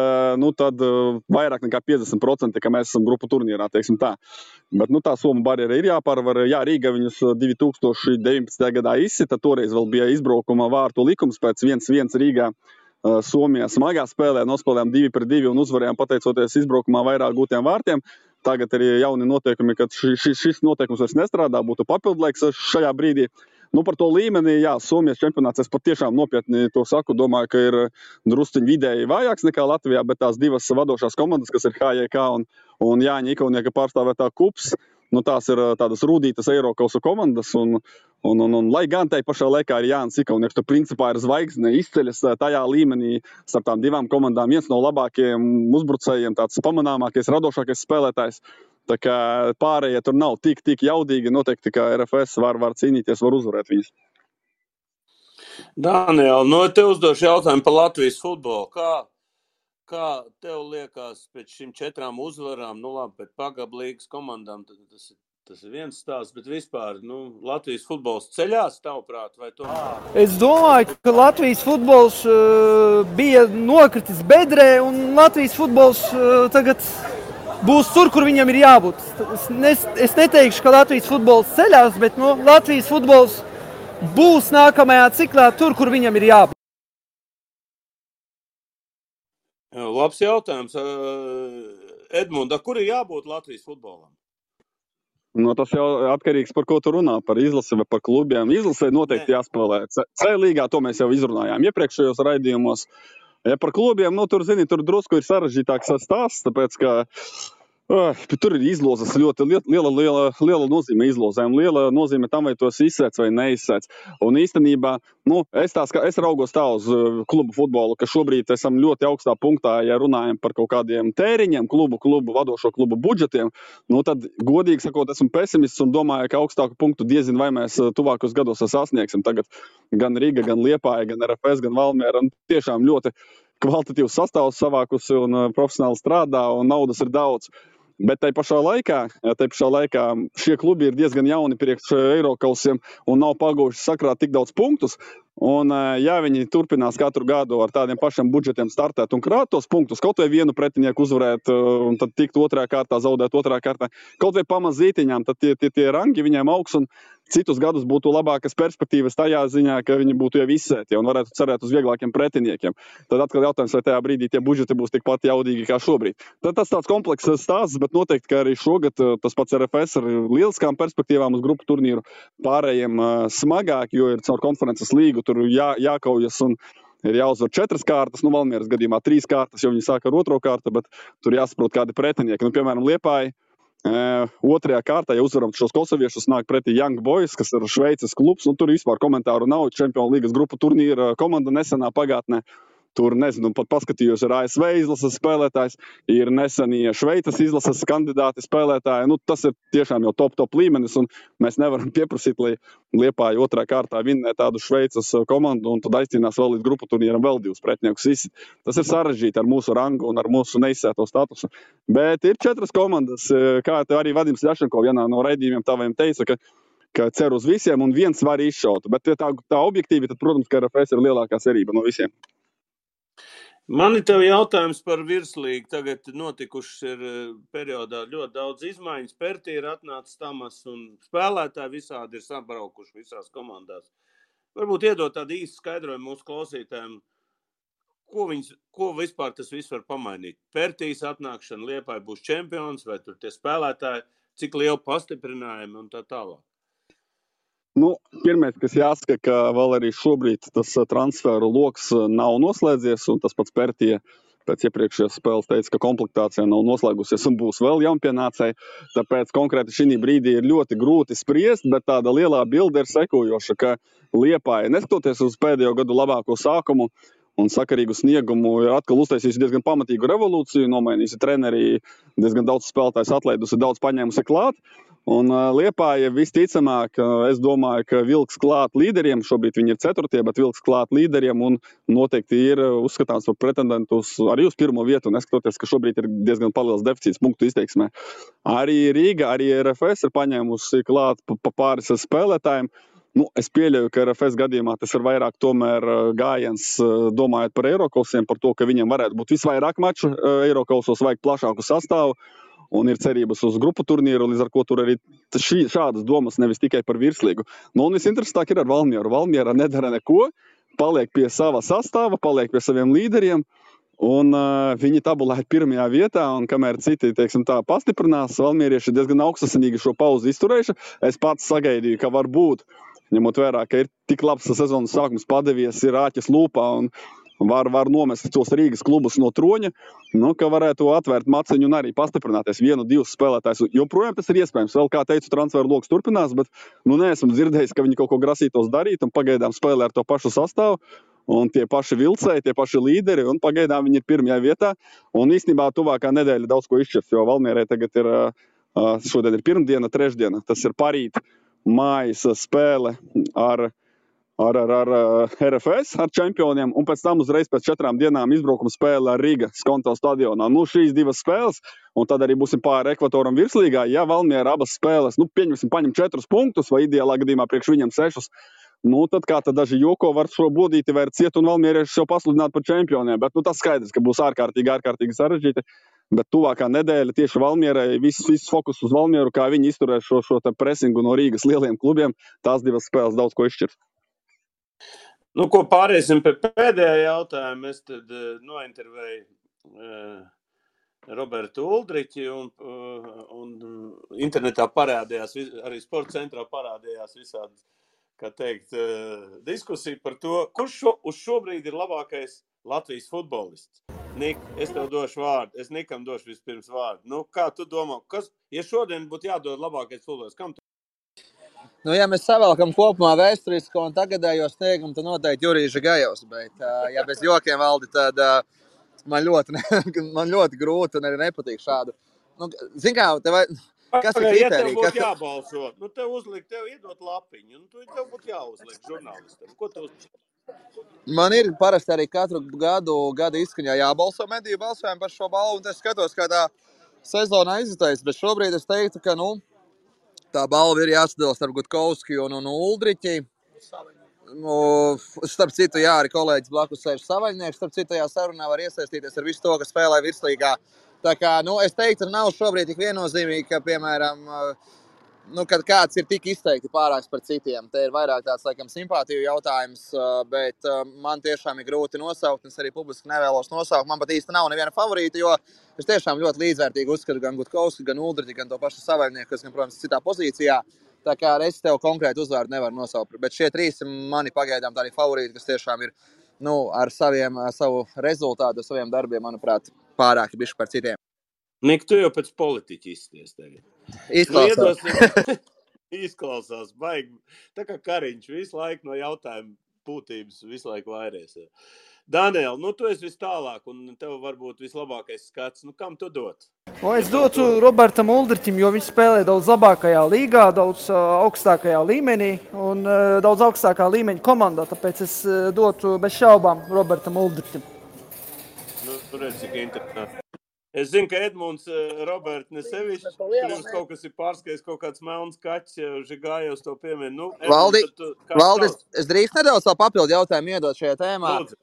vairāk nekā 50%, ka mēs esam grupu turnīrā, teiksim tā. Bet tā Somu barjera ir jāpārvar. Jā, Rīga viņus 2019. gadā izsita, toreiz vēl bija izbraukuma vārtu likums pēc 1-1 Rīgā. Somijā smagā spēlē nospēlējām 2-2 un uzvarējām pateicoties izbraukumā vairāk gūtiem vārtiem. Tagad ir jauni noteikumi, kad šis noteikums vairs nestrādā, būtu papildlaiks šajā brīdī. Par to līmeni, jā, Somijas čempionāts, es pat tiešām nopietni to saku, domāju, ka ir drusciņ vidēji vājāks nekā Latvijā, bet tās 2 vadošās komandas, kas ir HJK un Jāņa Ikaunieka pārstāvētā KUPS, tās ir tādas rūdītas Eirokausa komandas, un lai gan tai pašā laikā ir Jānis Ikaunieks, tur principā ir zvaigzne, izceļas tajā līmenī starp tām 2 komandām, viens no labākajiem uzbrucējiem, tāds pamanāmākais, radošākais spēlētājs. Tā kā pārējie tur nav tik jaudīgi, noteikti, ka RFS var cīnīties, var uzvarēt viņus. Daniel, te uzdošu jautājumu par Latvijas futbolu. Kā tev liekas pēc šīm 4 uzvarām, labi, pēc Pagaba līgas komandām, tas ir viens stāsts, bet vispār, Latvijas futbols ceļās, tavuprāt, vai to? Es domāju, ka Latvijas futbols bija nokritis bedrē, un Latvijas futbols tagad būs tur, kur viņam ir jābūt. Es neteikšu, ka Latvijas futbols ceļās, bet Latvijas futbols būs nākamajā ciklā tur, kur viņam ir jābūt. Labs jautājums. Edmunda, kur ir jābūt Latvijas futbolam? Tas jau atkarīgs, par ko tu runā, par izlasi vai par klubiem. Izlasē noteikti jāspēlē. C līgā to mēs jau izrunājām iepriekšējos raidījumos. Ja par klubiem, tur drusku ir sarežģītāks stāsts, tāpēc, ka tur ir izlozes ļoti liela nozīme izlozēm, liela nozīme tam, vai tos izsēc vai neizsēc. Un īstenībā, es raugos tā uz klubu futbolu, ka šobrīd esam ļoti augstā punktā, ja runājam par kaut kādiem tēriņiem, vadošo klubu budžetiem, tad godīgi sakot, esmu pesimists un domāju, ka augstāku punktu diezin vai mēs tuvākos gados sasniegsim. Tagad gan Rīga, gan Liepāja, gan RFS, gan Valmiera tiešām ļoti kvalitatīvs sastāvs savākusi un profesionāli strādā un naudas ir daudz. Bet tai pašā laikā šie klubi ir diezgan jauni priekš Eirokausiem un nav paguvuši sakrāt tik daudz punktus. Un, ja viņi turpinās katru gadu ar tādiem pašiem budžetiem startēt un krāt tos punktus, kaut vai vienu pretinieku uzvarēt un tad tikt otrajā kārtā, zaudēt otrajā kārtā, kaut vai pamazītiņām, tad tie rangi viņiem augs un citus gadus būtu labākas perspektīvas tajā ziņā, ka viņi būtu jau izsēti un varētu cerēt uz vieglākiem pretiniekiem. Tad atkal jautājums, vai tajā brīdī tie budžeti būs tikpat jaudīgi kā šobrīd. Tad tas tāds komplekss stāsts, bet noteikti, ka arī šogad tas pats RFS ar lieliskām perspektīvām uz grupu turnīru pārējiem smagāk, jo ir caur konferences līgu, tur jākaujas un ir jāuzvar 4 kārtas, Valmieras gadījumā 3 kārtas, jo viņi sāk ar otro kārtu, bet tur jāsaprot kādi pretinieki. Piemēram, Liepāja otrajā kārtā, ja uzvaram šos kosoviešus, nāk pretī Young Boys, kas ir Šveices klubs, un tur vispār komentāru nav, Čempionu līgas grupu turnīra komanda nesenā pagātnē. Tur, pat paskatījos, ir ASV izlases spēlētājs, ir nesenie Šveices izlases kandidāti spēlētāji. Tas ir tiešām jau top līmenis, un mēs nevaram pieprasīt, lai Liepāja otrā kārtā vinnē tādu Šveices komandu, un tad aizcīnās vēl līdz grupu turnīram vēl 2 pretiniekus izsit. Tas ir sarežģīti ar mūsu rangu un ar mūsu neizsēto statusu. Bet ir 4 komandas, kā te arī Vadims Ļašenko vienā no raidījumiem taviem teica, ka ka cer uz visiem un viens var izšaut. Bet tā objektīvi, tad, protams, ka RFS ir lielākā cerība no visiem. Man ir tev jautājums par virslīgu. Tagad notikušas ir periodā ļoti daudz izmaiņas. Pertī ir atnācis Tamas un spēlētāji visādi ir sabraukuši visās komandās. Varbūt iedot tādu īstu skaidrojumu mūsu klausītājiem, ko vispār tas viss var pamainīt. Pertīs atnākšana, Liepāja būs čempions, vai tur tie spēlētāji, cik liela pastiprinājumi un tā tālāk. Pirmais, kas jāsaka, ka vēl arī šobrīd tas transferu loks nav noslēdzies, un tas pats Pertija pēc iepriekšējās spēles teica, ka komplektācija nav noslēgusies un būs vēl jaunpienācēji. Tāpēc konkrēti šī brīdī ir ļoti grūti spriest, bet tāda lielā bilde ir sekojoša, ka Liepāja, neskatoties uz pēdējo gadu labāko sākumu un sakarīgu sniegumu, ir atkal uztaisījusi diezgan pamatīgu revolūciju, nomainījusi treneri, diezgan daudz spēlētājs atlaidusi, daudz paņēmusi klāt. Un Liepāja visticamāk, es domāju, ka vilks klāt līderiem, šobrīd viņi ir 4, bet vilks klāt līderiem un noteikti ir uzskatāms par pretendentu arī uz pirmo vietu, neskatoties, ka šobrīd ir diezgan paliels deficīts punktu izteiksmē. Arī Rīga, arī RFS ir paņēmusi klāt pa pāris spēlētājiem. Es pieļauju, ka RFS gadījumā tas ir vairāk tomēr gājiens, domājot par Eirokosiem, par to, ka viņiem varētu būt visvairāk maču Eirokosos, vajag plašāku sastāvu. Un ir cerības uz grupu turnīru, līdz ar ko tur arī šādas domas, nevis tikai par virslīgu. Un visinteresantāk ir ar Valmieru. Valmiera nedara neko, paliek pie sava sastāva, paliek pie saviem līderiem, un viņi tabulē pirmajā vietā, un kamēr citi, pastiprinās, valmierieši ir diezgan augstasinīgi šo pauzi izturējuši. Es pats sagaidīju, ka var būt, ņemot vērā, ka ir tik labs sezonas sākums padevies, ir āķis lūpā, un var nomest tos Rīgas klubus no troņa, ka varētu atvērt maciņu un arī pastiprināties 1-2 spēlētājus. Joprojām tas ir iespējams. Vēl, kā teicu, transferu loks turpinās, bet neesmu dzirdējis, ka viņi kaut ko grasītos darīt, un pagaidām spēlē ar to pašu sastāvu, un tie paši vilcēji, tie paši līderi, un pagaidām viņi ir pirmajā vietā. Un īstenībā tuvākā nedēļa daudz ko izšķirs, jo Valmierai tagad ir, šodien ir pirmdiena, trešdiena. Tas ir parīt mājas spēle ar RFS, ar čempioniem, un pēc tam uzreiz pēc 4 dienām izbraukuma spēle ar Rīga Skonto stadionā. Šīs 2 spēles, un tad arī būsim pāri ekvatoram virslīgā. Ja Valmiera abas spēles, pieņemsim, paņem 4 punktus, vai ideālā gadījumā priekš viņam 6, tad kā tad daži joko var šo bodīti vērt ciet un valmierieši jau pasludināt par čempioniem. Bet tas skaidrs, ka būs ārkārtīgi sarežģīti. Bet tuvākā nedēļa tieši Valmierai, viss fokus uz Valmieru, kā viņi izturēs šo presingu no Rīgas lieliem klubiem, tās 2 spēles daudz ko izšķirs. Ko pāriesim pie pēdējā jautājuma. Es tad nointervēju Robertu Uldriķi un internetā parādījās, arī sporta centrā parādījās visādi, kā teikt, diskusija par to, kurš uz šobrīd ir labākais Latvijas futbolists. Nik, es tev došu vārdu. Es Nikam došu vispirms vārdu. Kā tu domā, ja šodien būtu jādod labākais futbolists, kam tu? Ja mēs savēlkam kopumā vēsturisko un tagadējo sniegumu, tad noteikti Jurijs Žigajovs, bet, ja bez jokiem, Valdi, tad man ļoti grūti un arī nepatīk šādu. Zin kā, kas ir kriterija? Ja tev būtu jābalso, tev iedot lapiņu, un tev būtu jāuzliek žurnālistam. Ko tu uzliek? Man ir parasti arī katru gadu izskaņā jābalso mediju balsojumu par šo balvu, un es skatos, kā tā sezona aizitējas, bet šobrīd es teiktu, ka, tā balva ir jāsadala starp Gutkovski un Uldriķi. Starp citu, arī kolēģis blakus sēž Savaļnieks. Starp citu, tajā sarunā var iesaistīties ar visu to, kas spēlē virslīgā. Tā kā, es teiktu, nav šobrīd tik viennozīmīgi, ka, piemēram, kad kāds ir tik izteikti pārāks par citiem. Te ir vairāk tāds, laikam, simpātiju jautājums, bet man tiešām ir grūti nosaukt, es arī publiski nevēlos nosaukt. Man pat īsti nav neviena favorīta, jo es tiešām ļoti līdzvērtīgi uzskatu gan Gutkovski, gan Uldriķi, gan to pašu Savaļnieku, kas, gan, protams, citā pozīcijā. Tā kā es tev konkrēti uzvārdu nevaru nosaukt, bet šie 3 mani pagaidām tādi favorīti, kas tiešām ir, savu rezultātu, saviem darbiem, manuprāt, pārāki bišķi par citiem. Nik, tu jau pēc politiķi izsties tagad. Izklausās, baigi. Tā kā Kariņš visu laiku no jautājumu būtības visu laiku vairēs. Daniel, tu esi vis tālāk un tev varbūt vislabākais skats. Kam tu dot? Es dotu Robertam Uldriķim, jo viņš spēlē daudz labākajā līgā, daudz augstākajā līmenī un daudz augstākā līmeņa komandā. Tāpēc es dotu bez šaubām Robertam Uldriķim. Tur ir cik interesanti. Es zinu, ka Edmunds, Robert, nesevišķi, pirms kaut kas ir pārskaies, kaut kāds melns kaķis, Žigājos to piemin. Nu, Valdi, Edmunds, tad kāds Valdi, tavs? es drīkst nedaudz savu papildu jautājumu iedot šajā tēmā. Lūdzu.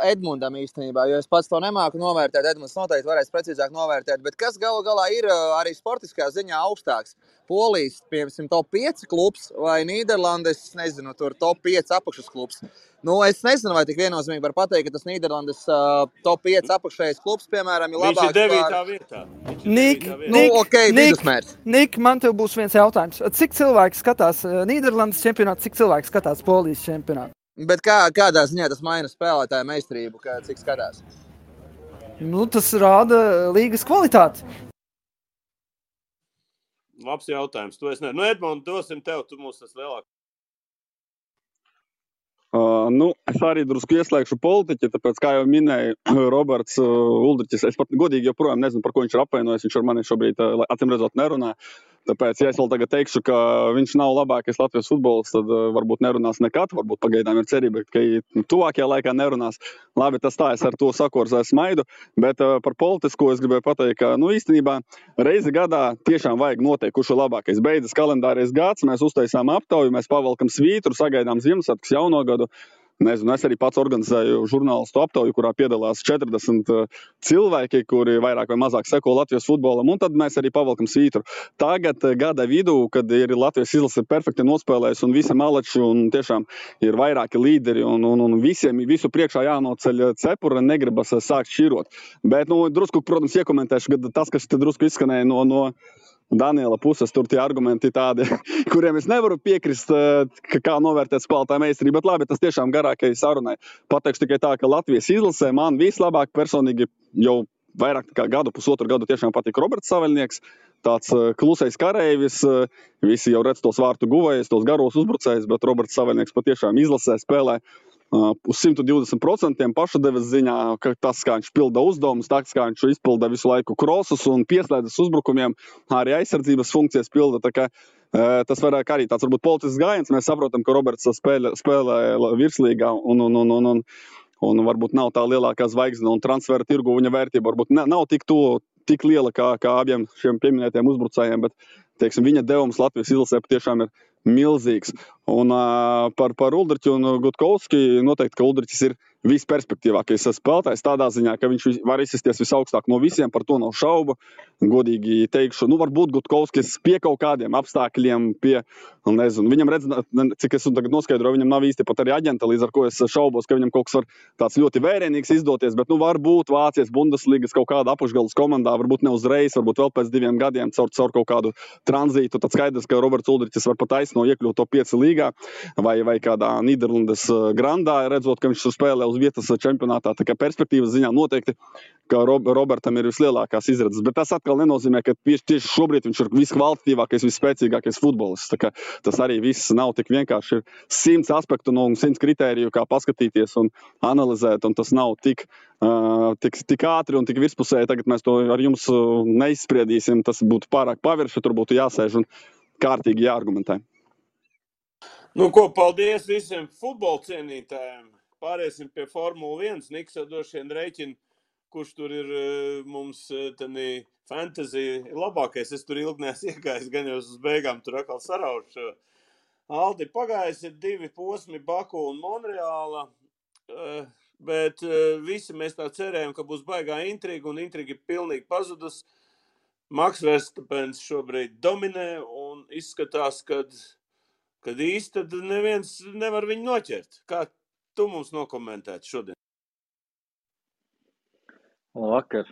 Edmundam īstenībā, jo es pats to nemāku novērtēt, Edmunds noteikti varēs precīzāk novērtēt, bet kas galu galā ir arī sportiskā ziņā augstāks? Polijas, piemēram, top 5 klubs vai Nīderlandes, nezinu, tur top 5 apakšas klubs. Nu, es nezinu, vai tik viennozīmīgi var pateikt, ka tas Nīderlandes top 5 apakšējais klubs, piemēram, ir labāks Viņš ir 9. vietā. Nik, Nu, ok, vidusmērs. Nik, man tev būs viens jautājums. Cik cilvēki skatās Nīderlandes čempionātu, cik cilvēki skatās Polijas čempionātu? Bet kādā ziņā tas maina spēlētāju meistarību, cik skatās? Nu, tas rāda līgas kvalitāti. Labs jautājums. To es ne. Nu, Edmund, dosim tev, tu mūs tas lielāk. Es arī drusku ieslēgšu politiķi, tāpēc, kā jau minēja Roberts Uldriķis, es pat godīgi joprojām nezinu, par ko viņš ir apvainojis. Viņš ar mani šobrīd, acīm redzot, nerunā. Tāpēc, ja es vēl tagad teikšu, ka viņš nav labākais Latvijas futbols, tad varbūt nerunās nekad, varbūt pagaidām ir cerība, ka tuvākajā laikā nerunās. Labi, tas tā, es ar to sakorzēju smaidu, bet par politisko es gribēju pateikt, ka, īstenībā reizi gadā tiešām vajag noteikt, kurš ir labākais. Beidzas kalendārais gads, mēs uztaisām aptauju, mēs pavalkam svītru, sagaidām Ziemassvētkus, jauno gadu. Nezinu, es arī pats organizēju žurnālistu aptauju, kurā piedalās 40 cilvēki, kuri vairāk vai mazāk seko Latvijas futbolam, un tad mēs arī pavalkam svītru. Tagad gada vidū, kad ir Latvijas izlase perfekti nospēlējis un visi malači un tiešām ir vairāki līderi un visiem visu priekšā jānoceļ cepura, negribas sākt šķirot. Bet, drusku, protams, iekomentēšu, ka tas, kas te drusku izskanēja no Daniela puses, tur tie argumenti tādi, kuriem es nevaru piekrist, kā novērtēt spēlētāju meistarību, bet labi, tas tiešām garākai sarunai. Pateikšu tikai tā, ka Latvijas izlasē man vislabāk personīgi jau vairāk kā pusotru gadu tiešām patīk Roberts Saveļnieks, tāds klusais kareivis, visi jau redz tos vārtu guvējus, tos garos uzbrucējus, bet Roberts Saveļnieks patiešām izlasē spēlē uz 120% pašadevas ziņā, ka tas, kā viņš pilda uzdevumus, tas, kā viņš izpilda visu laiku krosus un pieslēdzas uzbrukumiem, arī aizsardzības funkcijas pilda. Tā kā tas vairāk arī tāds varbūt politisks gājiens. Mēs saprotam, ka Roberts spēlē virslīgā un varbūt nav tā lielākā zvaigzne un transfera tirgu viņa vērtība varbūt nav tik liela kā abiem šiem pieminētiem uzbrucējiem, bet, teiksim, viņa devums Latvijas izlasē tiešām ir milzīgs. Un par Uldriķu un Gutkovski noteikti, ka Uldriķis ir visperspektīvākais spēlētājs tādā ziņā, ka viņš var izsisties visaugstāk no visiem, par to nav šaubu. Godīgi teikšu, varbūt Gutkovskis pie kaut kādiem apstākļiem, nezinu, viņam redz, cik es tagad noskaidroju, viņam nav īsti pat arī aģenta, līdz ar ko es šaubos, ka viņam kaut kas var tāds ļoti vērienīgs izdoties, bet varbūt Vācijas Bundesligas kaut kāda apakšgalas komandā, varbūt ne uzreiz, varbūt vēl pēc 2 gadiem caur kaut kādu tranzītu, tad skaidrs, ka Roberts Uldriķis var pat aizno iekļūt top 5 līgā vai kādā Nīderlandes grandā, redzot, ka viņš spēlē uz vietas čempionātā, tā kā perspektīvas ziņā noteikti, ka Robertam ir vislielākās izredzes, bet tas atkal nenozīmē, ka tieši šobrīd viņš ir viskvalitatīvākais, visspēcīgākais futbolists, tā kā tas arī viss nav tik vienkārši, ir 100 aspektu un 100 kritēriju, kā paskatīties un analizēt, un tas nav tik ātri un tik virspusēji, tagad mēs to ar jums neizspriedīsim, tas būtu pārāk pavirši, tur būtu jāsēž un kārtīgi jāargumentē. Paldies visiem futbola cienītājiem. Pāriesim pie Formula 1. Niks jau droši vien rēķina, kurš tur ir mums fantasy labākais. Es tur ilgi neesmu iegājis, gan jau uz beigām tur atkal saraušu. Aldi, pagājis ir 2 posmi, Baku un Monreāla, bet visi mēs tā cerējam, ka būs baigā intriga, un intriga ir pilnīgi pazudus. Max Verstappens šobrīd dominē, un izskatās, kad īsti tad neviens nevar viņu noķert. Kā tu mums nokomentētu šodien? Vakar.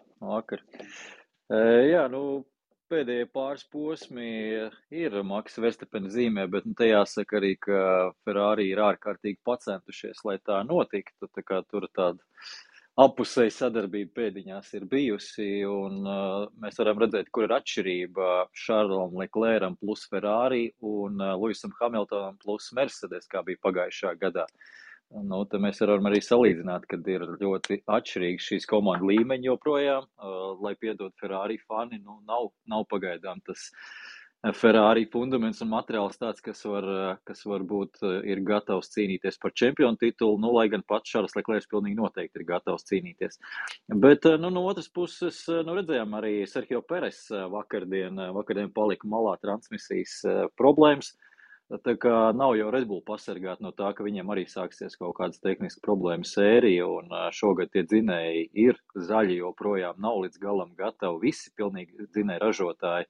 Jā, pēdējie pāris posmi ir Max Verstappen zīmē, bet te jāsaka arī, ka Ferrari ir ārkārtīgi pacentušies, lai tā notiktu. Tā kā tur tāda apusēja sadarbība pēdiņās ir bijusi, un mēs varam redzēt, kur ir atšķirība Charlesom Leclercam plus Ferrari un Lewisam Hamiltonam plus Mercedes, kā bija pagājušā gadā. Te mēs varam arī salīdzināt, kad ir ļoti atšķirīgi šīs komandu līmeņi joprojām, lai piedod Ferrari fani, nav pagaidām tas Ferrari fundaments un materiāls tāds, kas var būt ir gatavs cīnīties par čempionu titulu, nu, lai gan pats Šarls Leklērs pilnīgi noteikti ir gatavs cīnīties. Bet, nu, no otras puses, nu, redzējām arī Sergio Peres vakardien palika malā transmisijas problēmas. Tā kā nav jau Red Bull pasargāt no tā, ka viņiem arī sāksies kaut kādas tehniskas problēmas sērija, un šogad tie dzinēji ir zaļi, joprojām nav līdz galam gatavi, visi pilnīgi dzinēji ražotāji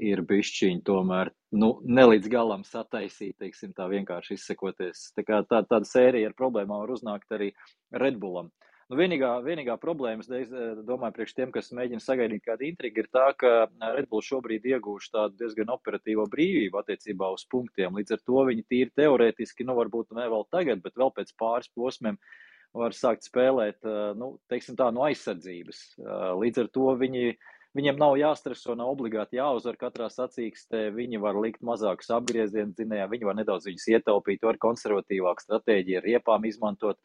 ir bišķiņi tomēr, nu, ne līdz galam sataisīt, teiksim, tā vienkārši izsekoties. Tā kā tāda sērija ar problēmām var uznākt arī Red Bullam. Nu, vienīgā problēma, es domāju, priekš tiem, kas mēģina sagaidīt kādu intrigu, ir tā, ka Red Bull šobrīd iegūš tādu diezgan operatīvo brīvību attiecībā uz punktiem. Līdz ar to viņi tīri teorētiski, nu, varbūt ne vēl tagad, bet vēl pēc pāris posmiem var sākt spēlēt, nu, teiksim tā, no aizsardzības. Līdz ar to viņiem nav jāstreso, nav obligāti jāuzvar katrā sacīkstē, viņi var likt mazākus apgriezienus dzinējā, viņi var nedaudz viņus ietaupīt, var konservatīvāku stratēģiju ar riepām izmantot,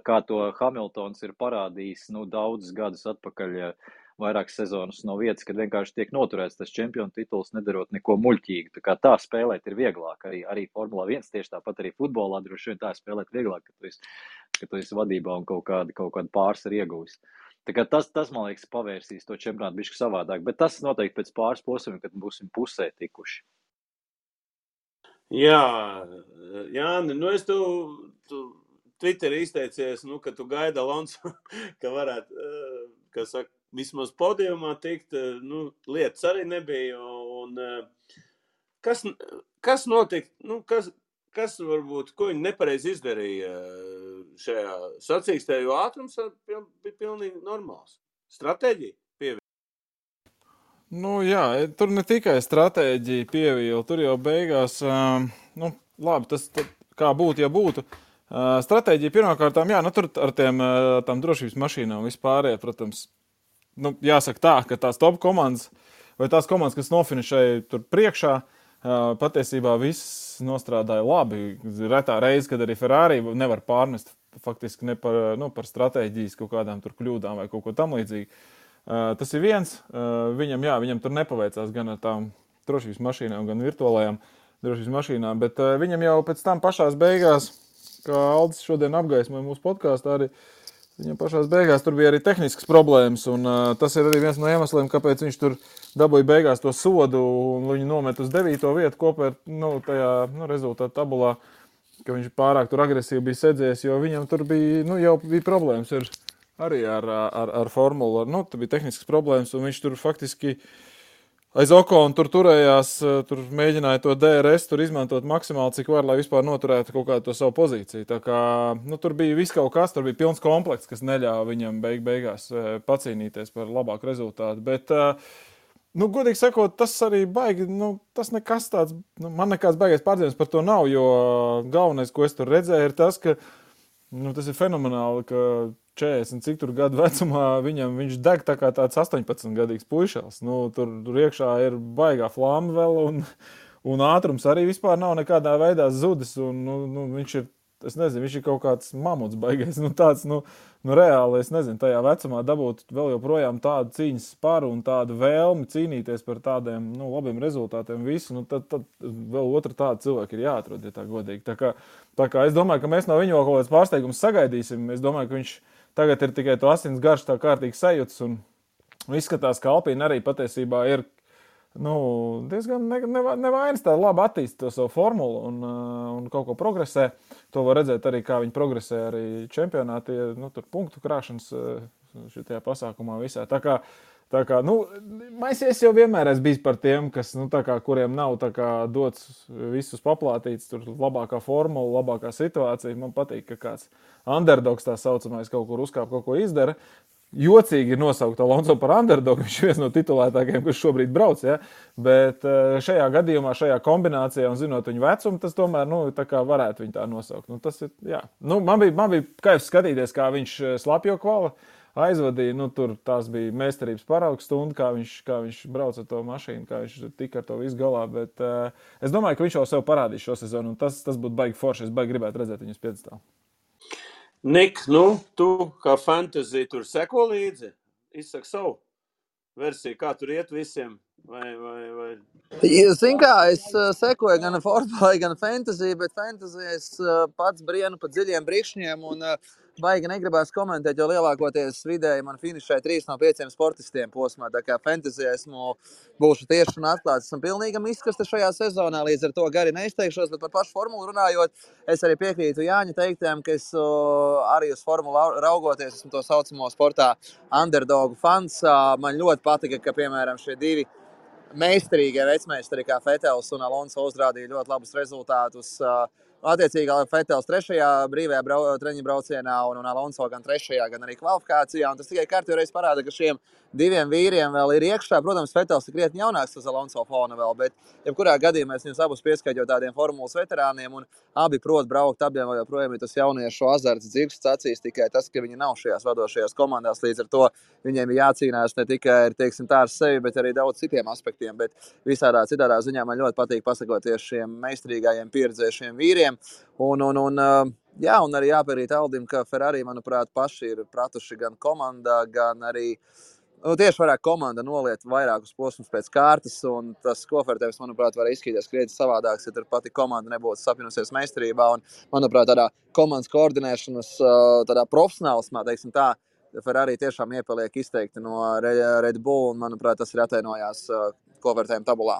kā to Hamiltons ir parādījis, nu, daudzus gadus atpakaļ, vairākas sezonas no vietas, kad vienkārši tiek noturēts tas čempionu tituls, nedarot neko muļķīgu. Tā kā tā spēlēt ir vieglāk, arī Formula 1 tieši tāpat arī futbolā droši vien tā spēlēt vieglāk, ka tu esi vadībā un kaut kādu pārsvaru iegūsi. Tā kā tas, man liekas, pavērsīs to čempionātu bišķi savādāk, bet tas noteikti pēc pāris posmiem, kad būsim pusē tikuši. Jā, Jāni, nu es tu Twitterī izteicies, nu, ka tu gaidi Alonso, ka varētu, kā saka, vismaz podiumā tikt, nu, lietas arī nebija, un kas notika, nu, kas varbūt, ko viņi nepareizi izdarīja šajā sacīkstē, jo ātrums bija pilnīgi normāls. Stratēģija pievīla. Nu jā, tur ne tikai stratēģija pievīla, tur jau beigās, nu, labi, tas kā būtu, ja būtu. Stratēģija pirmkārtām, jā, nu tur ar tām drošības mašīnām vispārējā, protams, nu, jāsaka tā, ka tās top komandas vai tās komandas, kas nofinišēja tur priekšā, patiesībā viss nostrādāja labi. Retā reize, kad arī Ferrari nevar pārnest faktiski ne par stratēģijas kaut kādām tur kļūdām vai kaut ko tam līdzīgi. Tas ir viens, viņam tur nepaveicās gan ar tām drošības mašīnām, gan virtuālajām drošības mašīnām, bet viņam jau pēc tam pašās beigās, kā Aldis šodien apgaismoja mūsu podkāstā, arī viņam pašās beigās tur bija arī tehniskas problēmas, un tas ir arī viens no iemesliem, kāpēc viņš tur dabūja beigās to sodu, un viņu nomet uz 9. vietu kopā ar, tajā, rezultātu tabulā, ka viņš pārāk tur agresīvi bija sēdzies, jo viņam tur bija, jau bija problēmas arī ar formulu, tur bija tehniskas problēmas, un viņš tur faktiski aiz Okona tur turējās, tur mēģināja to DRS tur izmantot maksimāli, cik var, lai vispār noturētu kaut kādu to savu pozīciju. Tā kā, tur bija viss kaut kas, tur bija pilns komplekts, kas neļāva viņam beigās pacīnīties par labāku rezultātu. Bet, godīgi sakot, tas arī baigi, tas nekas tāds, man nekāds baigais pārdzīvums par to nav, jo galvenais, ko es tur redzēju, ir tas, ka tas ir fenomenāli, ka 40 cik tur gadu vecumā viņš deg tā kā tāds 18-gadīgs puišals. Tur iekšā ir baigā flāma vēl, un ātrums arī vispār nav nekādā veidā zudis, un viņš ir, es nezinu, viņš ir kaut kāds mamuts baigais, tāds, reāli, es nezinu, tajā vecumā dabūt vēl joprojām tādu cīņas sparu un tādu vēlmi cīnīties par tādiem, labiem rezultātiem visu, tad vēl otra tāda cilvēka ir jāatrod, ja tā godīgi. Tā kā es domāju, ka mēs no viņu kaut kāds pārsteigums sagaidīsim, es domāju, ka viņš tagad ir tikai to asins garš tā kārtīgi sajūtas, un izskatās, ka Alpīna arī patiesībā ir, diezgan nevainas tā labi attīst to savu formulu un kaut ko progresē. To var redzēt arī, kā viņi progresē arī čempionāti, tur punktu krāšanas šitajā pasākumā visā. Tā kā, Maisies jau vienmēr esmu bijis par tiem, kas, kuriem nav dots visus paplātīts, tur labākā formula, labākā situācija. Man patīk, ka kāds underdogs tā saucamais kaut kur uzkāp, kaut ko izdara. Jocīgi ir nosaukt Alonso par underdogu, viņš ir viens no titulētākajiem, kas šobrīd brauc, ja? Bet šajā gadījumā, šajā kombinācijā un zinot viņu vecumu, tas tomēr, tā kā varētu viņu tā nosaukt. Tas ir, jā. Man bija kaifs skatīties, kā viņš slapjo kvala aizvadīja, tur tās bija meistarības paraugs stunda, kā viņš brauc ar to mašīnu, kā viņš tika ar to visu galā, bet es domāju, ka viņš jau sev parādīs šo sezonu, un tas būtu baigi forši, es baigi gribētu redzēt viņus piedestālu. Nik, tu kā fantasy tur seko līdzi, izsaka savu versiju, kā tur iet visiem vai? Zini kā, es sekoju gan Formulai, gan Fantasy, bet Fantasy es pats brienu pa dziļiem brikšņiem un baigi negribās komentēt, jo lielākoties vidēji man finišē 3 no 5 sportistiem posmā. Tā kā Fantasy būšu tieši un atklāts. Esmu pilnīgam izkasta šajā sezonā, līdz ar to gari neizteikšos, bet par pašu formulu runājot, es arī piekrītu Jāņa teiktiem, ka es arī uz formulu raugoties, esmu to saucamo sportā underdogu fans. Man ļoti patika, ka, piemēram, šie divi meistarīgie vecmeistari kā Fetels un Alonso uzrādīja ļoti labus rezultātus. Attiecīgi Fetels 3. brīvajā treniņu braucienā un Alonso gan 3., gan arī kvalifikācijā. Un tas tikai kārtīgi parāda, ka šiem diviem vīriem vēl ir iekšā. Protams, Fetels ir krietni jaunāks uz Alonso fona vēl, bet jebkurā gadījumā es viņus abus pieskaitļu tādiem formulas veterāniem un abi prot braukt, abiem vēl joprojām ir tas jauniešu azarts dzirksts acīs, tikai tas, ka viņi nav šajās vadošajās komandās, līdz ar to viņiem ir jācīnās ne tikai ar sevi, bet arī daudz citiem aspektiem, bet visādā citādā ziņā man ļoti patīk pasakoties šiem meistarīgajiem pieredzējušiem vīriem, un arī jāpierīt Aldim, ka Ferrari, manuprāt, paši ir pratuši gan komandā, gan arī tieši varētu komanda noliet vairākus posmus pēc kārtas, un tas kofertējums, manuprāt, var izskatīties krietni savādāks, ja tur pati komanda nebūtu sapinusies meistarībā, un, manuprāt, tādā komandas koordinēšanas, tādā profesionālismā, teiksim tā, Ferrari tiešām iepaliek izteikti no Red Bull, un, manuprāt, tas ir atainojās kofertējuma tabulā.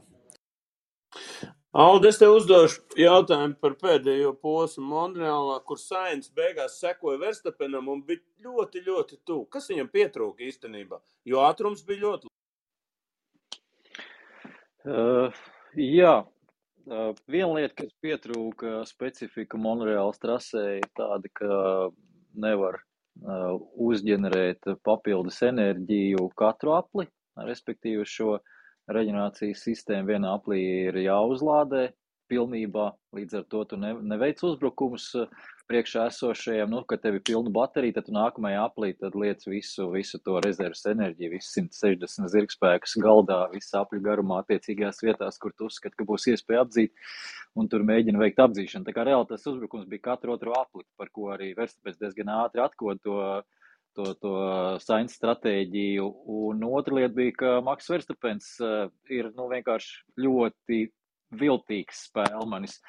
Aldi, es tev uzdošu jautājumu par pēdējo posmu Monreālā, kur Sainz beigās sekoja Verstappenam un bija ļoti, ļoti tuvu. Kas viņam pietrūka īstenībā? Jo ātrums bija ļoti. Viena lieta, kas pietrūka specifika Monreālas trasē, ir tāda, ka nevar uzģenerēt papildus enerģiju katru apli, respektīvi šo reģenerācijas sistēma vienā aplī ir jāuzlādē pilnībā, līdz ar to tu neveic uzbrukumus priekšā esošajiem, kad tev ir pilna baterija, tad tu nākamajā aplī tad liec visu to rezerves enerģiju, visu 160 zirgspēkus galdā, visu apļu garumā attiecīgajās vietās, kur tu uzskati, ka būs iespēja apdzīt, un tur mēģina veikt apdzīšanu. Tā kā reāli tas uzbrukums bija katru otru apli, par ko arī Verstappens diezgan ātri atkod to Sainz stratēģiju, un otra lieta bija, ka Maks Verstappens ir vienkārši ļoti viltīgs spēlmanis.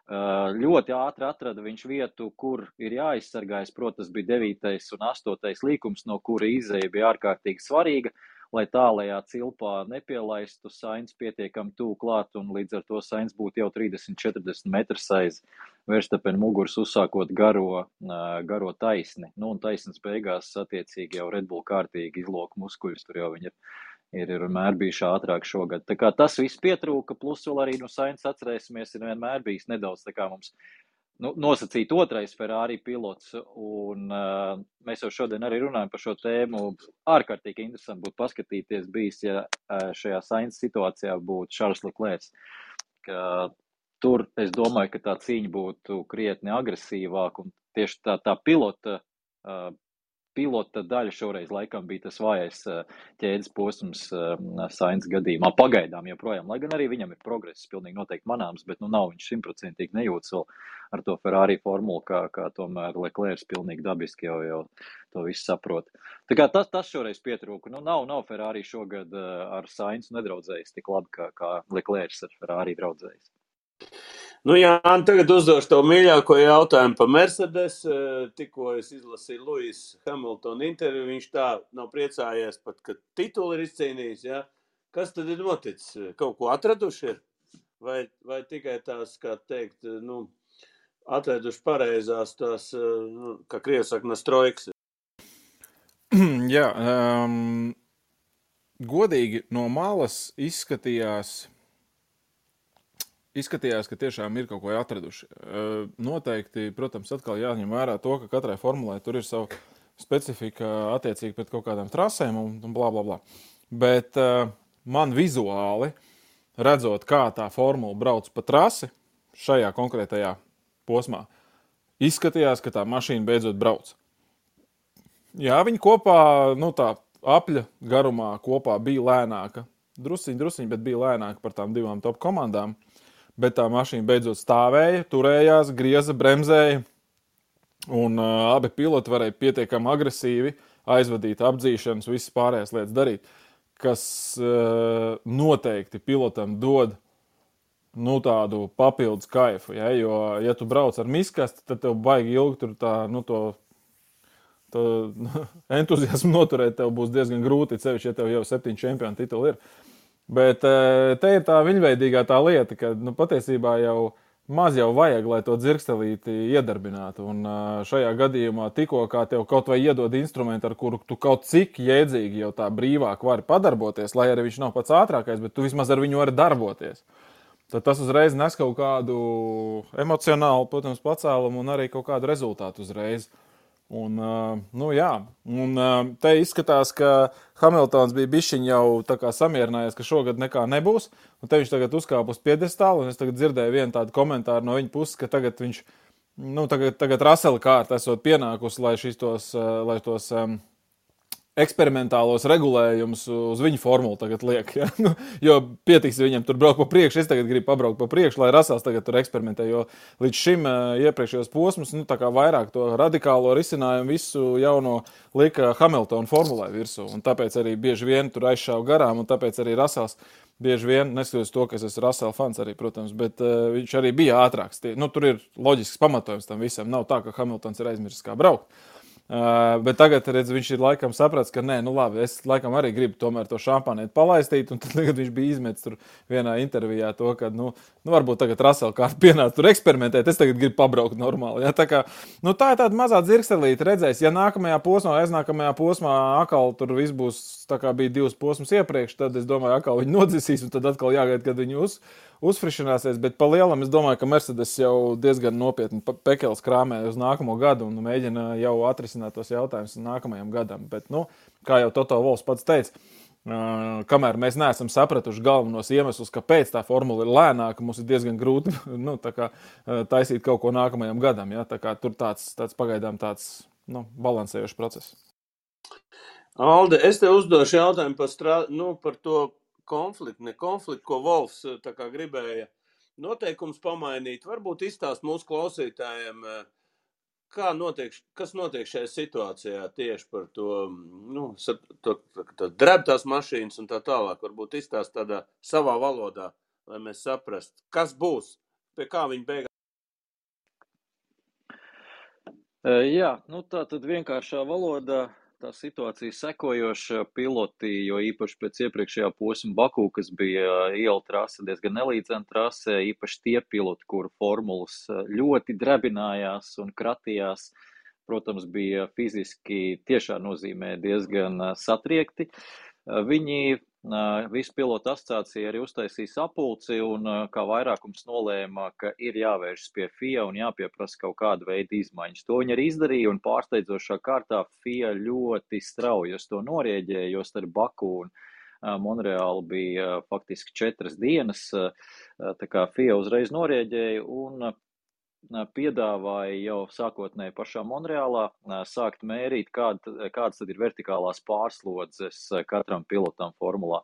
Ļoti ātri atrada viņš vietu, kur ir jāizsargājas, protams, bija 9. un 8. līkums, no kura izēja bija ārkārtīgi svarīga, lai tālajā cilpā nepielaistu Sainz pietiekami tuvu klāt, un līdz ar to Sainz būtu jau 30-40 metrus aiz Verstappen muguras, uzsākot garo taisni. Un taisnes beigās attiecīgi jau Red Bull kārtīgi izloka muskuļus, tur jau viņi ir vienmēr bijuši ātrāk šogad. Tā kā tas viss pietrūka, plus vēl arī Sainz atcerēsimies, ir vienmēr bijis nedaudz tā kā mums nosacīt otrais Ferrari pilots, un mēs jau šodien arī runājam par šo tēmu. Ārkārtīgi interesanti būtu paskatīties bijis, ja šajā Sainz situācijā būtu Charles Leclerc. Tur es domāju, ka tā cīņa būtu krietni agresīvāk, un tieši tā pilota daļa šoreiz laikam bija tas vājais ķēdes posms Sainz gadījumā. Pagaidām joprojām, lai gan arī viņam ir progress pilnīgi noteikti manāms, bet nav viņš 100% nejūtas vēl ar to Ferrari formulu, kā tomēr Leclerc pilnīgi dabiski jau to visu saprot. Tā kā tas šoreiz pietrūka. Nav Ferrari šogad ar Sainz nedraudzējis tik labi, kā Leclerc ar Ferrari draudzējis. Tagad uzdošu tev mīļāko jautājumu par Mercedes. Tikko es izlasīju Lewis Hamilton interviju, viņš tā nav priecājies pat, ka tituli ir izcīnījis. Ja? Kas tad ir noticis? Kaut ko atraduši ir? Vai tikai tās, kā teikt, atraduši pareizās tās, kā krievi saka, nastroiks? Jā, godīgi no malas izskatījās, ka tiešām ir kaut ko atraduši. Noteikti, protams, atkal jāņem vērā to, ka katrai formulai tur ir savu specifika attiecīgi pret kaut kādām trasēm un blā, blā, blā. Bet man vizuāli, redzot, kā tā formula brauc pa trasi šajā konkrētajā posmā, izskatījās, ka tā mašīna beidzot brauc. Jā, viņi kopā, tā apļa garumā kopā bija lēnāka. Drusiņ, bet bija lēnāka par tām divām top komandām. Bet tā mašīna beidzot stāvēja, turējās, grieza, bremzēja, un abi piloti varēja pietiekami agresīvi aizvadīt apdzīšanas, visas pārējās lietas darīt. kas noteikti pilotam dod tādu papildus kaifu. Ja? Jo, ja tu brauc ar miskasti, tad tev baigi ilgi tur to entuziasmu noturēt tev būs diezgan grūti, sevišķi, ja tev jau 7 čempionu tituli ir. Bet te ir tā viņveidīgā tā lieta, ka patiesībā jau maz jau vajag, lai to dzirkstelīti iedarbinātu. Un šajā gadījumā tikko kā tev kaut vai iedod instrumentu, ar kuru tu kaut cik jēdzīgi jau tā brīvāk vari padarboties, lai arī viņš nav pats ātrākais, bet tu vismaz ar viņu vari darboties. Tad tas uzreiz nes kaut kādu emocionālu, protams, pacēlumu un arī kaut kādu rezultātu uzreiz. Un, te izskatās, ka Hamiltons bija bišķiņ jau tā kā samierinājies, ka šogad nekā nebūs, un te viņš tagad uzkāp uz piedestālu, un es tagad dzirdēju vienu tādu komentāru no viņa puses, ka tagad viņš, tagad Russella kārta esot pienākusi, lai tos eksperimentālos regulējumus uz viņu formulu tagad liek, ja? Jo pietiks viņam tur braukt pa priekšu, es tagad gribu pabraukt pa priekšu, lai Russells tagad tur eksperimentē, jo līdz šim iepriekšējos posmus, tā kā vairāk to radikālo risinājumu visu jauno lika Hamiltona formulē virsū, un tāpēc arī bieži vien tur aizšāva garām, un tāpēc arī Russells bieži vien, neskatoties to, ka es esmu Russell fans arī, protams, bet viņš arī bija ātrāks. Tur ir loģisks pamatojums tam visam, nav tā, ka Hamiltons ir aizmirsis kā braukt. Bet tagad, redz, viņš ir laikam saprats, ka nē, labi, es laikam arī gribu tomēr to šampānieti palaistīt, un tad tagad viņš bija izmetis tur vienā intervijā to, ka, varbūt tagad Russell kārt pienāca tur eksperimentēt, es tagad gribu pabraukt normāli, ja, tā kā, tā ir tāda mazā dzirkstelīte, redzēs, ja nākamajā posmā, aiznākamajā posmā akal tur viss būs, tā kā bija 2 posmus iepriekš, tad es domāju, akal viņi nodzisīs, un tad atkal jāgaida, kad viņi uzfrišināsies, bet pa lielam es domāju, ka Mercedes jau diezgan nopietni pekels krāmē uz nākamo gadu un mēģina jau atrisināt tos jautājumus nākamajam gadam. Bet, kā jau Toto Wolffs pats teica, kamēr mēs neesam sapratuši galvenos iemeslus, kāpēc tā formula ir lēnāka, mums ir diezgan grūti taisīt kaut ko nākamajam gadam. Ja? Tā kā tur tāds pagaidām tāds balansējošs process. Alde, es te uzdošu jautājumu par to konfliktu, ko Wolffs tā kā gribēja noteikums pamainīt. Varbūt izstāst mūsu klausītājiem, kas notiek šajā situācijā tieši par to drebtās mašīnas un tā tālāk. Varbūt izstāst tādā savā valodā, lai mēs saprastu, kas būs, pie kā viņi beigās. Jā, tā tad vienkāršā valodā. Tā situācija sekojoša, piloti, jo īpaši pēc iepriekšējā posma Baku, kas bija iela trase, diezgan nelīdzena trase, īpaši tie piloti, kuru formulas ļoti drebinājās un kratījās, protams, bija fiziski tiešā nozīmē diezgan satriekti. Viņi visu pilotu asociācija arī uztaisīja sapulci un kā vairākums nolēma, ka ir jāvēršas pie FIA un jāpieprasa kaut kāda veida izmaiņas. To viņi arī izdarīja un pārsteidzošā kārtā FIA ļoti strauji uz to norieģēja, jo starp Baku un Monreālu bija faktiski 4 dienas, tā kā FIA uzreiz norieģēja un piedāvāja jau sākotnēji pašā Monreālā sākt mērīt, kādas tad ir vertikālās pārslodzes katram pilotam formulā.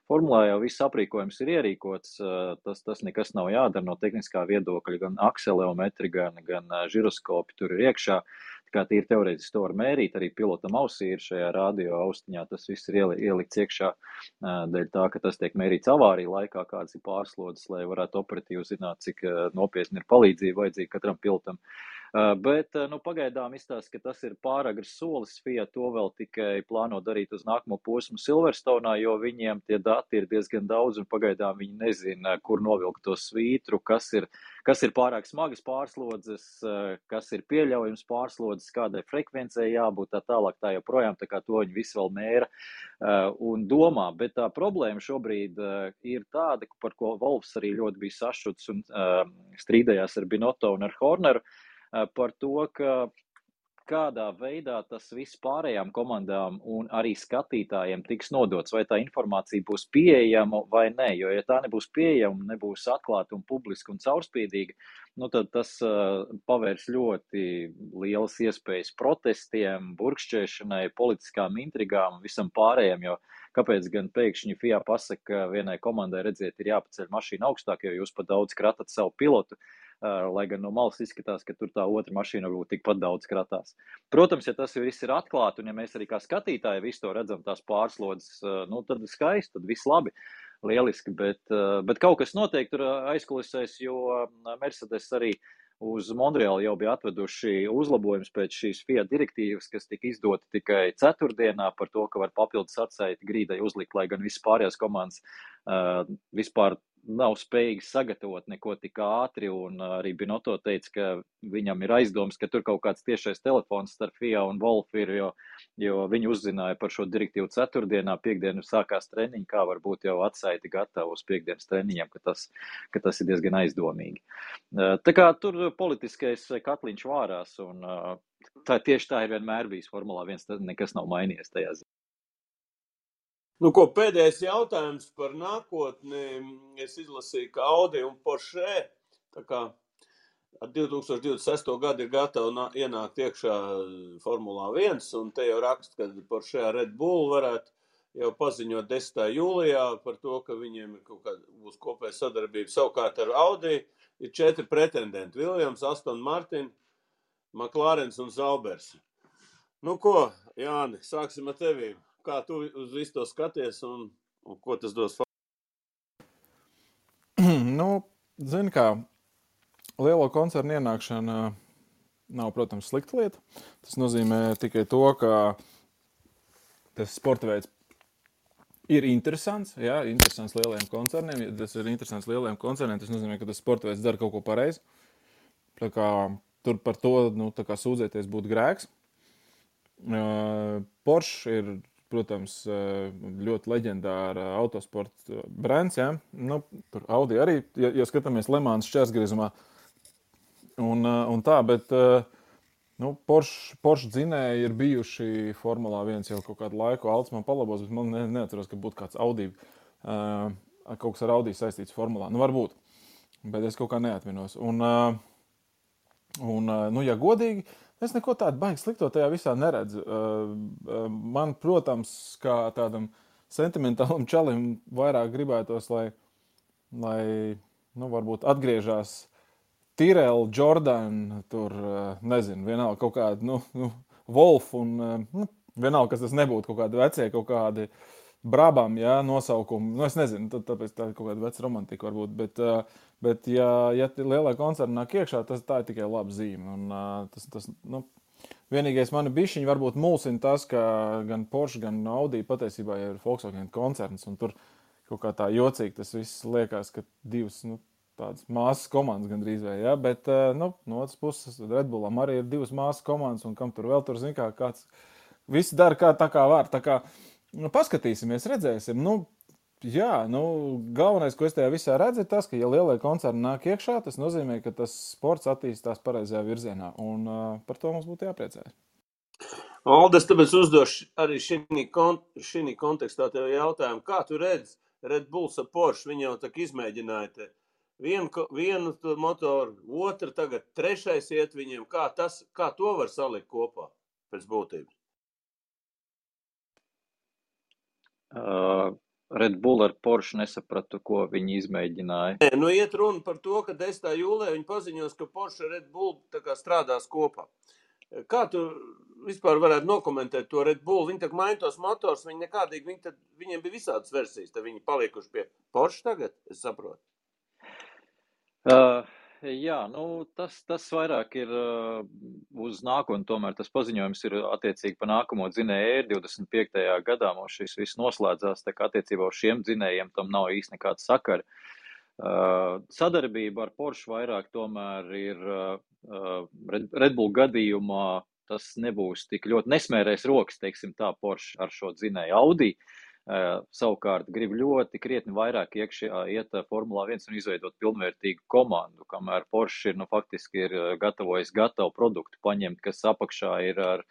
Formulā jau viss aprīkojums ir ierīkots, tas nekas nav jādara no tehniskā viedokļa, gan akseleometri, gan žiroskopi tur ir iekšā. Tā kā tīri teorētiski to var mērīt, arī pilotam ausī ir šajā radio austiņā, tas viss ir ielikts iekšā dēļ tā, ka tas tiek mērīts avārija laikā, kādas ir pārslodzes, lai varētu operatīvi zināt, cik nopietni ir palīdzība vajadzīga katram pilotam. Bet pagaidām izstāsta, ka tas ir pāragrs solis. FIA to vēl tikai plāno darīt uz nākamo posmu Silverstone'ā, jo viņiem tie dati ir diezgan daudz un pagaidām viņi nezina, kur novilkt to svītru, kas ir pārāk smagas pārslodzes, kas ir pieļaujams pārslodzes, kādai frekvencei jābūt tā tālāk, tā joprojām, tā kā to viņi visu vēl mēra un domā. Bet tā problēma šobrīd ir tāda, par ko Wolffs arī ļoti bija sašuts un strīdējās ar Binotto un ar Horneru, par to, ka kādā veidā tas viss pārējām komandām un arī skatītājiem tiks nodots, vai tā informācija būs pieejama vai nē, jo ja tā nebūs pieejama, nebūs atklāta un publiska un caurspīdīga, tad tas pavērs ļoti lielas iespējas protestiem, burkšķēšanai, politiskām intrigām un visam pārējiem, jo kāpēc gan pēkšņi FIA pasaka, ka vienai komandai, redziet, ir jāpaceļ mašīna augstāk, jo jūs pat daudz kratat savu pilotu. lai gan no malas izskatās, ka tur tā otra mašīna varbūt tikpat daudz kratās. Protams, ja tas viss ir atklāti, un ja mēs arī kā skatītāji visu to redzam, tās pārslodzes, nu, tad skaisti, tad viss labi, lieliski, bet kaut kas noteikti tur aizkulisēs, jo Mercedes arī uz Montreālu jau bija atveduši uzlabojums pēc šīs Fiat direktīvas, kas tika izdota tikai ceturtdienā par to, ka var papildus atsaiti grīdai uzlikt, lai gan visas pārējās komandas vispār nav spējīgi sagatavot neko tik ātri, un arī Binotto teica, ka viņam ir aizdoms, ka tur kaut kāds tiešais telefons starp FIA un Wolf ir, jo viņi uzzināja par šo direktīvu ceturtdienā, piekdienu sākās treniņi, kā varbūt jau atsaiti gatavu uz piekdienas treniņiem, ka tas ir diezgan aizdomīgi. Tā kā tur politiskais katliņš vārās, un tieši tā ir vienmēr bijis Formulā 1, tad nekas nav mainījies tajā ziņā. Nu, ko pēdējais jautājums par nākotni. Es izlasīju, ka Audi un Porsche tā kā 2026. gadu ir gatavi ienākt iekšā Formulā 1, un te jau raksta, ka Porsche Red Bull varētu jau paziņot 10. jūlijā par to, ka viņiem ir kaut kāda būs kopēja sadarbība. Savukārt ar Audi ir 4 pretendenti. Williams, Aston Martin, McLarens un Zaubers. Nu ko, Jāni, sāksim ar tevīm. Kā tu uz visu to skaties un ko tas dos? Nu, zini kā, lielo koncernu ienākšana nav, protams, slikta lieta. Tas nozīmē tikai to, ka tas sporta veids ir interesants, jā, interesants lielajiem koncerniem. Ja tas ir interesants lielajiem koncerniem, tas nozīmē, ka tas sporta veids dara kaut ko pareizi. Tā kā tur par to, nu, tā kā sūdzēties būtu grēks. Porsche ir, protams, ļoti leģendāra autosporta brands, jā. Nu, tur Audi arī, ja skatāmies Le Mans šķērsgriezumā un tā, bet nu, Porsche dzinēji ir bijuši Formulā 1 jau kaut kādu laiku. Alts man palabos, bet man neatceros, ka būtu kāds Audi, kaut kas ar Audi saistīts Formulā. Nu, varbūt, bet es kaut kā neatminos. Nu, ja godīgi, es neko tādu baigi slikto tajā visā neredzu. Man, protams, kā tādam sentimentālam čalim vairāk gribētos, lai nu, varbūt atgriežās Tyrrell, Jordan, tur, nezinu, vienalga kaut kādi, nu Wolf un, vienalga, kas tas nebūtu, kaut kādi vecie, kaut kādi Brabham, jā, nosaukumi. Nu, es nezinu, tāpēc tā kaut kāda veca romantika varbūt, bet ja lielā koncerna nāk iekšā, tā ir tikai laba zīme. Un tas, nu, vienīgais mani bišķiņi varbūt mulsina tas, ka gan Porsche, gan Audi patiesībā ir Volkswagen koncerns, un tur kaut kā tā jocīgi tas viss liekas, ka divas, nu, tādas māsas komandas gandrīz vai, jā, bet, nu, no otras puses Red Bullam arī ir divas māsas komandas, un kam tur vēl tur, zin kā, kāds, visi dara tā kā var, tā kā, nu, paskatīsimies, redzēsim, nu, jā, nu, galvenais, ko es tajā visā redzu, ir tas, ka, ja lielie koncerni nāk iekšā, tas nozīmē, ka tas sports attīstās pareizajā virzienā, un par to mums būtu jāpriecājas. Aldes, tāpēc uzdošu arī šī kontekstā tev jautājumu, kā tu redzi Red Bulls ar Porsche, viņi jau tā izmēģināja te vienu motoru, otru, tagad trešais iet viņiem, kā to var salikt kopā pēc būtības? Red Bull ar Porsche nesapratu, ko viņi izmēģināja. Nē, nu iet runa par to, ka 10. jūlijā viņi paziņos, ka Porsche ar Red Bull tā kā strādās kopā. Kā tu vispār varētu nokomentēt to Red Bull? Viņi tā maina tos motors, viņi nekādīgi, viņiem bija visādas versijas, tad viņi paliekuši pie Porsche tagad, es saprotu. Jā, nu, tas vairāk ir uz nākotni, tomēr tas paziņojums ir attiecīgi pa nākamo dzinēju 25. gadā, mums šis viss noslēdzās, tā kā attiecībā uz šiem dzinējiem tam nav īsti nekāda sakara. Sadarbība ar Porsche vairāk tomēr ir Red Bull gadījumā, tas nebūs tik ļoti nesmērēs rokas, teiksim tā, Porsche ar šo dzinēju Audi. Savukārt grib ļoti krietni vairāk iekšā iet Formulā 1 un izveidot pilnvērtīgu komandu, kamēr Porsche faktiski ir gatavojis gatavu produktu paņemt, kas apakšā ir ar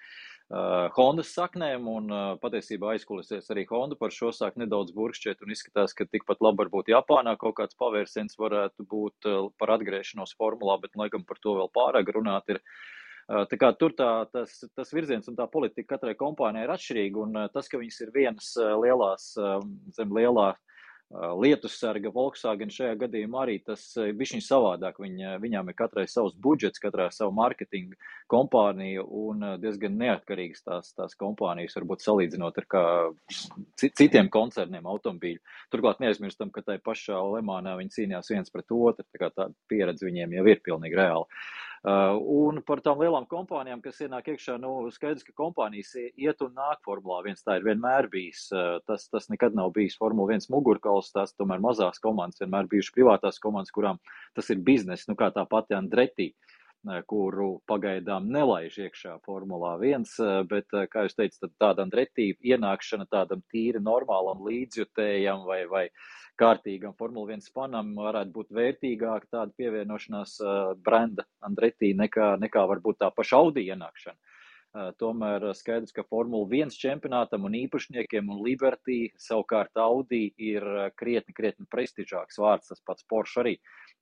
Hondas saknēm, un patiesībā aizkulisēs arī Honda par šo sāk nedaudz burkšķiet un izskatās, ka tikpat labi varbūt Japānā kaut kāds pavērsiens varētu būt par atgriešanos Formulā, bet laikam par to vēl pārāk runāt ir. Tā kā tur tas virziens un tā politika katrai kompānijai ir atšķirīga, un tas, ka viņas ir vienas lielās, zem lielā Lietussarga, Volkswagen šajā gadījumā arī tas bišķiņ savādāk. Viņām ir katrai savs budžets, katrai savu marketingu kompāniju un diezgan neatkarīgas tās kompānijas, varbūt salīdzinot ar kā citiem koncerniem automobīļu. Turklāt neaizmirstam, ka tai pašā Lemānā viņi cīnījās viens pret otru, tā kā tā pieredze viņiem jau ir pilnīgi reāla. Un par tām lielām kompānijām, kas ienāk iekšā, skaidrs, ka kompānijas iet un nāk Formulā 1, tā ir vienmēr bijis. Tas nekad nav bijis Formula 1 mugurkauls, tās tomēr mazās komandas, vienmēr bijuši privātās komandas, kurām tas ir biznes, kā tā pati Andretti, kuru pagaidām nelaiž iekšā Formulā 1, bet, kā jūs teicat, tāda Andretti ienākšana tādam tīri normālam līdzjutējam vai kārtīgam Formula 1 fanam varētu būt vērtīgāk tāda pievienošanās brenda Andretti nekā varbūt tā paša Audi ienākšana. Tomēr skaidrs, ka Formula 1 čempionātam un īpašniekiem un Liberty savukārt Audi ir krietni prestižāks vārds, tas pats Porsche arī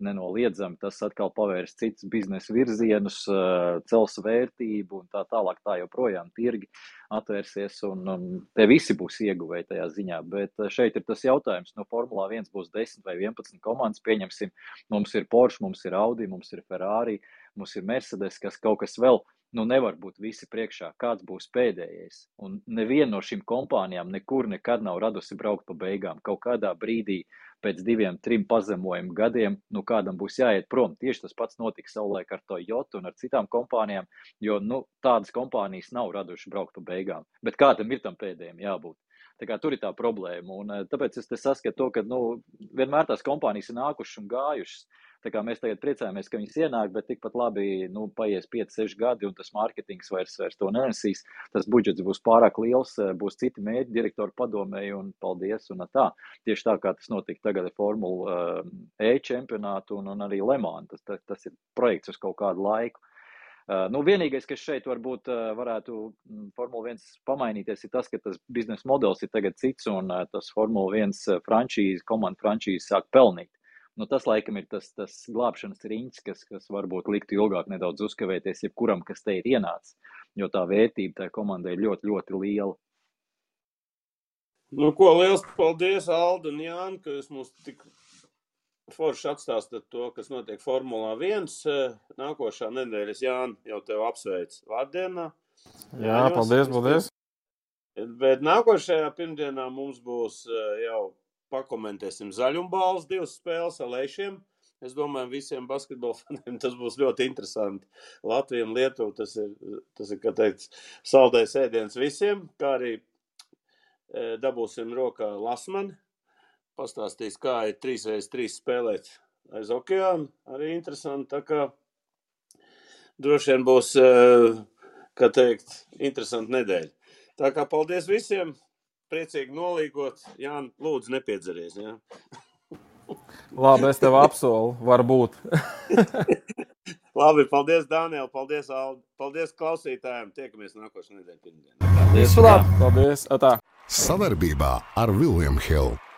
nenoliedzami. Tas atkal pavērs citus biznesa virzienus, cels vērtību un tā tālāk, tā joprojām tirgi atvērsies un te visi būs ieguvēji tajā ziņā. Bet šeit ir tas jautājums, no Formulā 1 būs 10 vai 11 komandas, pieņemsim, mums ir Porsche, mums ir Audi, mums ir Ferrari, mums ir Mercedes, kas kaut kas vēl, nevar būt visi priekšā, kāds būs pēdējais. Un neviena no šīm kompānijām nekur nekad nav radusi braukt pa beigām. Kaut kādā brīdī pēc 2-3 pazemojumu gadiem, kādam būs jāiet prom. Tieši tas pats notika savulaik ar Toyota un ar citām kompānijām, jo, tādas kompānijas nav raduši braukt pa beigām. Bet kādam ir tam pēdējiem jābūt. Tā kā tur ir tā problēma. Un tāpēc es te saskatu to, ka, vienmēr tās kompānijas ir nākušas un gājušas. Tā kā mēs tagad priecājamies, ka viņas ienāk, bet tikpat labi, paies 5-6 gadi un tas mārketings vairs to nenesīs. Tas budžets būs pārāk liels, būs citi mērķi direktoru padomēji un paldies un tā. Tieši tā, kā tas notika tagad ar Formula E čempionātu un arī Le Mans. Tas ir projekts uz kaut kādu laiku. Vienīgais, kas šeit varbūt varētu Formula 1 pamainīties, ir tas, ka tas biznesa modelis ir tagad cits un tas Formula 1 komanda frančīze sāk pelnīt. Tas laikam ir tas glābšanas riņķis, kas varbūt liktu ilgāk nedaudz uzkavēties jebkuram, kas te ir ienācis, jo tā vērtība tai komandai ir ļoti, ļoti liela. Liels paldies, Alda un Jāni, ka jūs mums tik forši atstāstat to, kas notiek Formulā 1. Nākošā nedēļas, Jāni, jau tev apsveic vārdienā. Jā, paldies. Bet nākošajā pirmdienā mums būs jau pakomentēsim zaļumbāles 2 spēles ar Leišiem. Es domāju, visiem basketbola faniem tas būs ļoti interesanti. Latvija un Lietuva tas ir, kā teikt, saldais ēdiens visiem, kā arī dabūsim rokā Lasmani. Pastāstīs, kā ir 3x3 spēlēt aiz okeāna. Arī interesanti, tā kā droši vien būs, kā teikt, interesanti nedēļa. Tā kā paldies visiem! Priecīgi nolīgot. Jāni, lūdzu, nepiedzeries. Jā? Labi, es tev apsolu, varbūt. Labi, paldies, Daniel, paldies, Aldi. Paldies klausītājiem. Tiekamies nākošais nedēļa pirmdienā. Paldies. Atā. Sadarbībā ar William Hill.